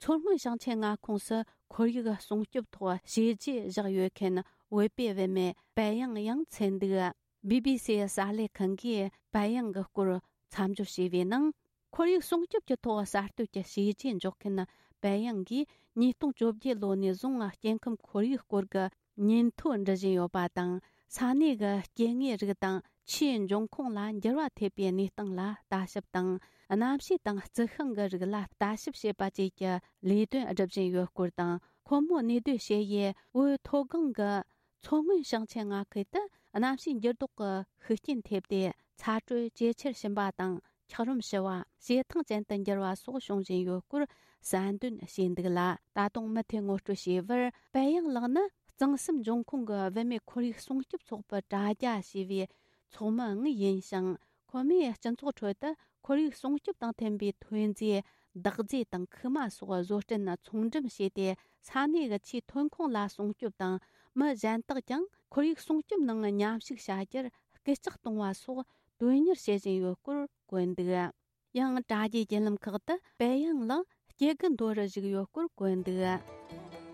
མཚོ་སྔོན་ཞིང་ཆེན་མངའ་ཁོངས་སུ་ཁོར་ཡུག་སྲུང་སྐྱོབ་ཐོག་བྱས་རྗེས་བཞག་ཡོད་མཁན་བོད་པའི་བུད་མེད་པད་ཡང་ཡང་ཚུད་འདུག། བི་བི་སི་གསར་ལས་ཁང་གིས་པད་ཡང་གི་སྐོར་མཚམས་སྦྱོར་བྱས་པའི་ནང་། ཁོར་ཡུག་སྲུང་སྐྱོབ་ཀྱི་ཐོག་གསར་གཏོད་ཀྱི་བྱས་རྗེས་འཇོག་མཁན་པད་ཡང་གིས་ཉིས་སྟོང་བཅོ་བརྒྱད་ལོ་ནས་བཟུང་སྐྱེ་ཁམས་ཁོར་ཡུག་སྐོར་གྱི་ཉིན་ཐོ་འབྲི་བཞིན་ཡོད་པ་དང་། ས་གནས་ཀྱི་སྐྱེ་དངོས་རིགས་དང་ཆུའི་འབྱུང་ཁུངས་ལ་འགྱུར་བ་ཐེབས་པའི་གནས་སྟངས་ལ་ལྟ་ཞིབ་དང་། གནམ་གཤིས་དང་རྩི་ཤིང་གི་རིགས་ལ་ལྟ་ཞིབ་བྱེད་པ་བཅས་ཀྱི་ལས་དོན་སྒྲུབ་བཞིན་ཡོད་སྐོར་དང་། ཁོ་མོ་གནས་སྡོད་བྱེད་ཡུལ་བོད་མཐོ་སྒང་གི་མཚོ་སྔོན་ཞིང་ཆེན་མངའ་ཁུལ་དུ་གནམ་གཤིས་འགྱུར་ལྡོག་གི་ཤུགས་རྐྱེན་ཐེབས་ཏེ། ཚ་དྲོད་ཇེ་ཆེར་ཕྱིན་པ་དང་། འཁྱགས་རོམ་ཞུ་བ། བྱེ་ཐང་ཅན་དུ་འགྱུར་བ་སོགས་བྱུང་བཞིན་ཡོད་སྐོར་གསལ་འདོན་བྱས་འདུག་ལ། ད་དུང་མུ་མཐུད་ངོ་སྤྲོད་བྱས་པར། པད་ཡང་ལགས་ནི་གཙང་གསུམ་འབྱུང་ཁུངས་ཀྱི་བུད་མེད་ཁོར་ཡུག་སྲུང་སྐྱོབ་ཚོགས་པའི་དྲ་རྒྱ་ཞེས་པའི་ཚོགས་མི་དངོས་ཡིན་ཞིང་། ཁོ་མོས་སྤྱི་ཚོགས་ཁྲོད་དུ་ཁོར་ཡུག་སྲུང་སྐྱོབ་དང་མཐུན་པའི་ཐོན་རྫས། འདག་རྫས་དང་ཁུག་མ་སོགས་བཟོ་སྐྲུན་ཚོང་འགྲེམས་བྱས་ཏེ། ས་གནས་ཀྱི་ཆུའི་ཐོན་ཁུངས་ལ་སྲུང་སྐྱོབ་དང་། མི་གཞན་དག་ཀྱང་ཁོར་ཡུག་སྲུང་སྐྱོབ་ནང་མཉམ་ཞུགས་བྱ་རྒྱུར་སྐུལ་ལྕག་གཏོང་བ་སོགས་དོན་གཉེར་བྱེད་བཞིན་ཡོད་སྐོར་བཀོད་འདུག། ཡང་དྲ་རྒྱའི་བརྒྱུད་ལམ་ཁག་ཏུ་པད་ཡང་ལགས་སྐྱེ་རྒུ་མདོ་རུ་བཞུགས་ཡོད་སྐོར་བཀོད་འདུག།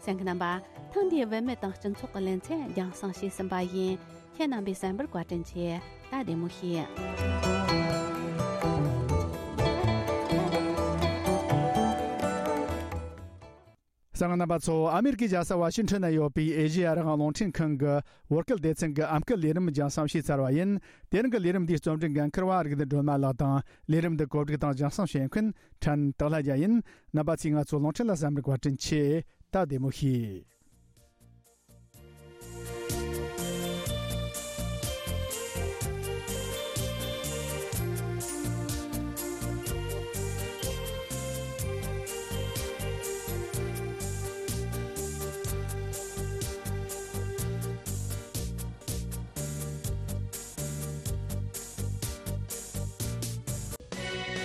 གསན་མཁན་རྣམ་པ། ཐེངས་འདིའི་བུད་མེད་དང་སྤྱི་ཚོགས་ཀྱི་ལེ་ཚན་རྒྱང་སྲིང་བྱས་ཟིན་པ་ཡིན། ཁྱེད་རྣམ་པས་གསན་པར་བཀའ་དྲིན་ཆེ། ད་བདེ་མོ་བྱོས། གསན་མཁན་རྣམ་པ་ཚོ། ཨ་མེ་རི་ཀའི་རྒྱལ་ས་ཝ་ཤིང་ཊོན་ན་ཡོད་པའི་ཨེ་ཤེ་ཡ་རང་དབང་རླུང་འཕྲིན་ཁང་གི་བོད་སྐད་སྡེ་ཚན་གྱི་ཨམ་སྐད་ལས་རིམ་རྒྱང་སྲིང་བྱས་ཚར་བ་ཡིན། དེ་རིང་གི་ལས་རིམ་འདིའི་རྩོམ་སྒྲིག་འགན་འཁུར་བ་རིག་ལྡན་སྒྲོལ་མ་ལགས་དང་། ལས་རིམ་འདི་གོ་སྒྲིག་དང་རྒྱང་སྲིང་བྱེད་མཁན་ཕྲན་སྟག་ལྷ་རྒྱལ་ཡིན། རྣམ་པ་ཚོས་ང་ཚོའི་རླུང་འཕྲིན་ལ་བསམ་རིག་བཀའ་དྲིན་ཆེ། ད་བདེ་མོ་བྱོས།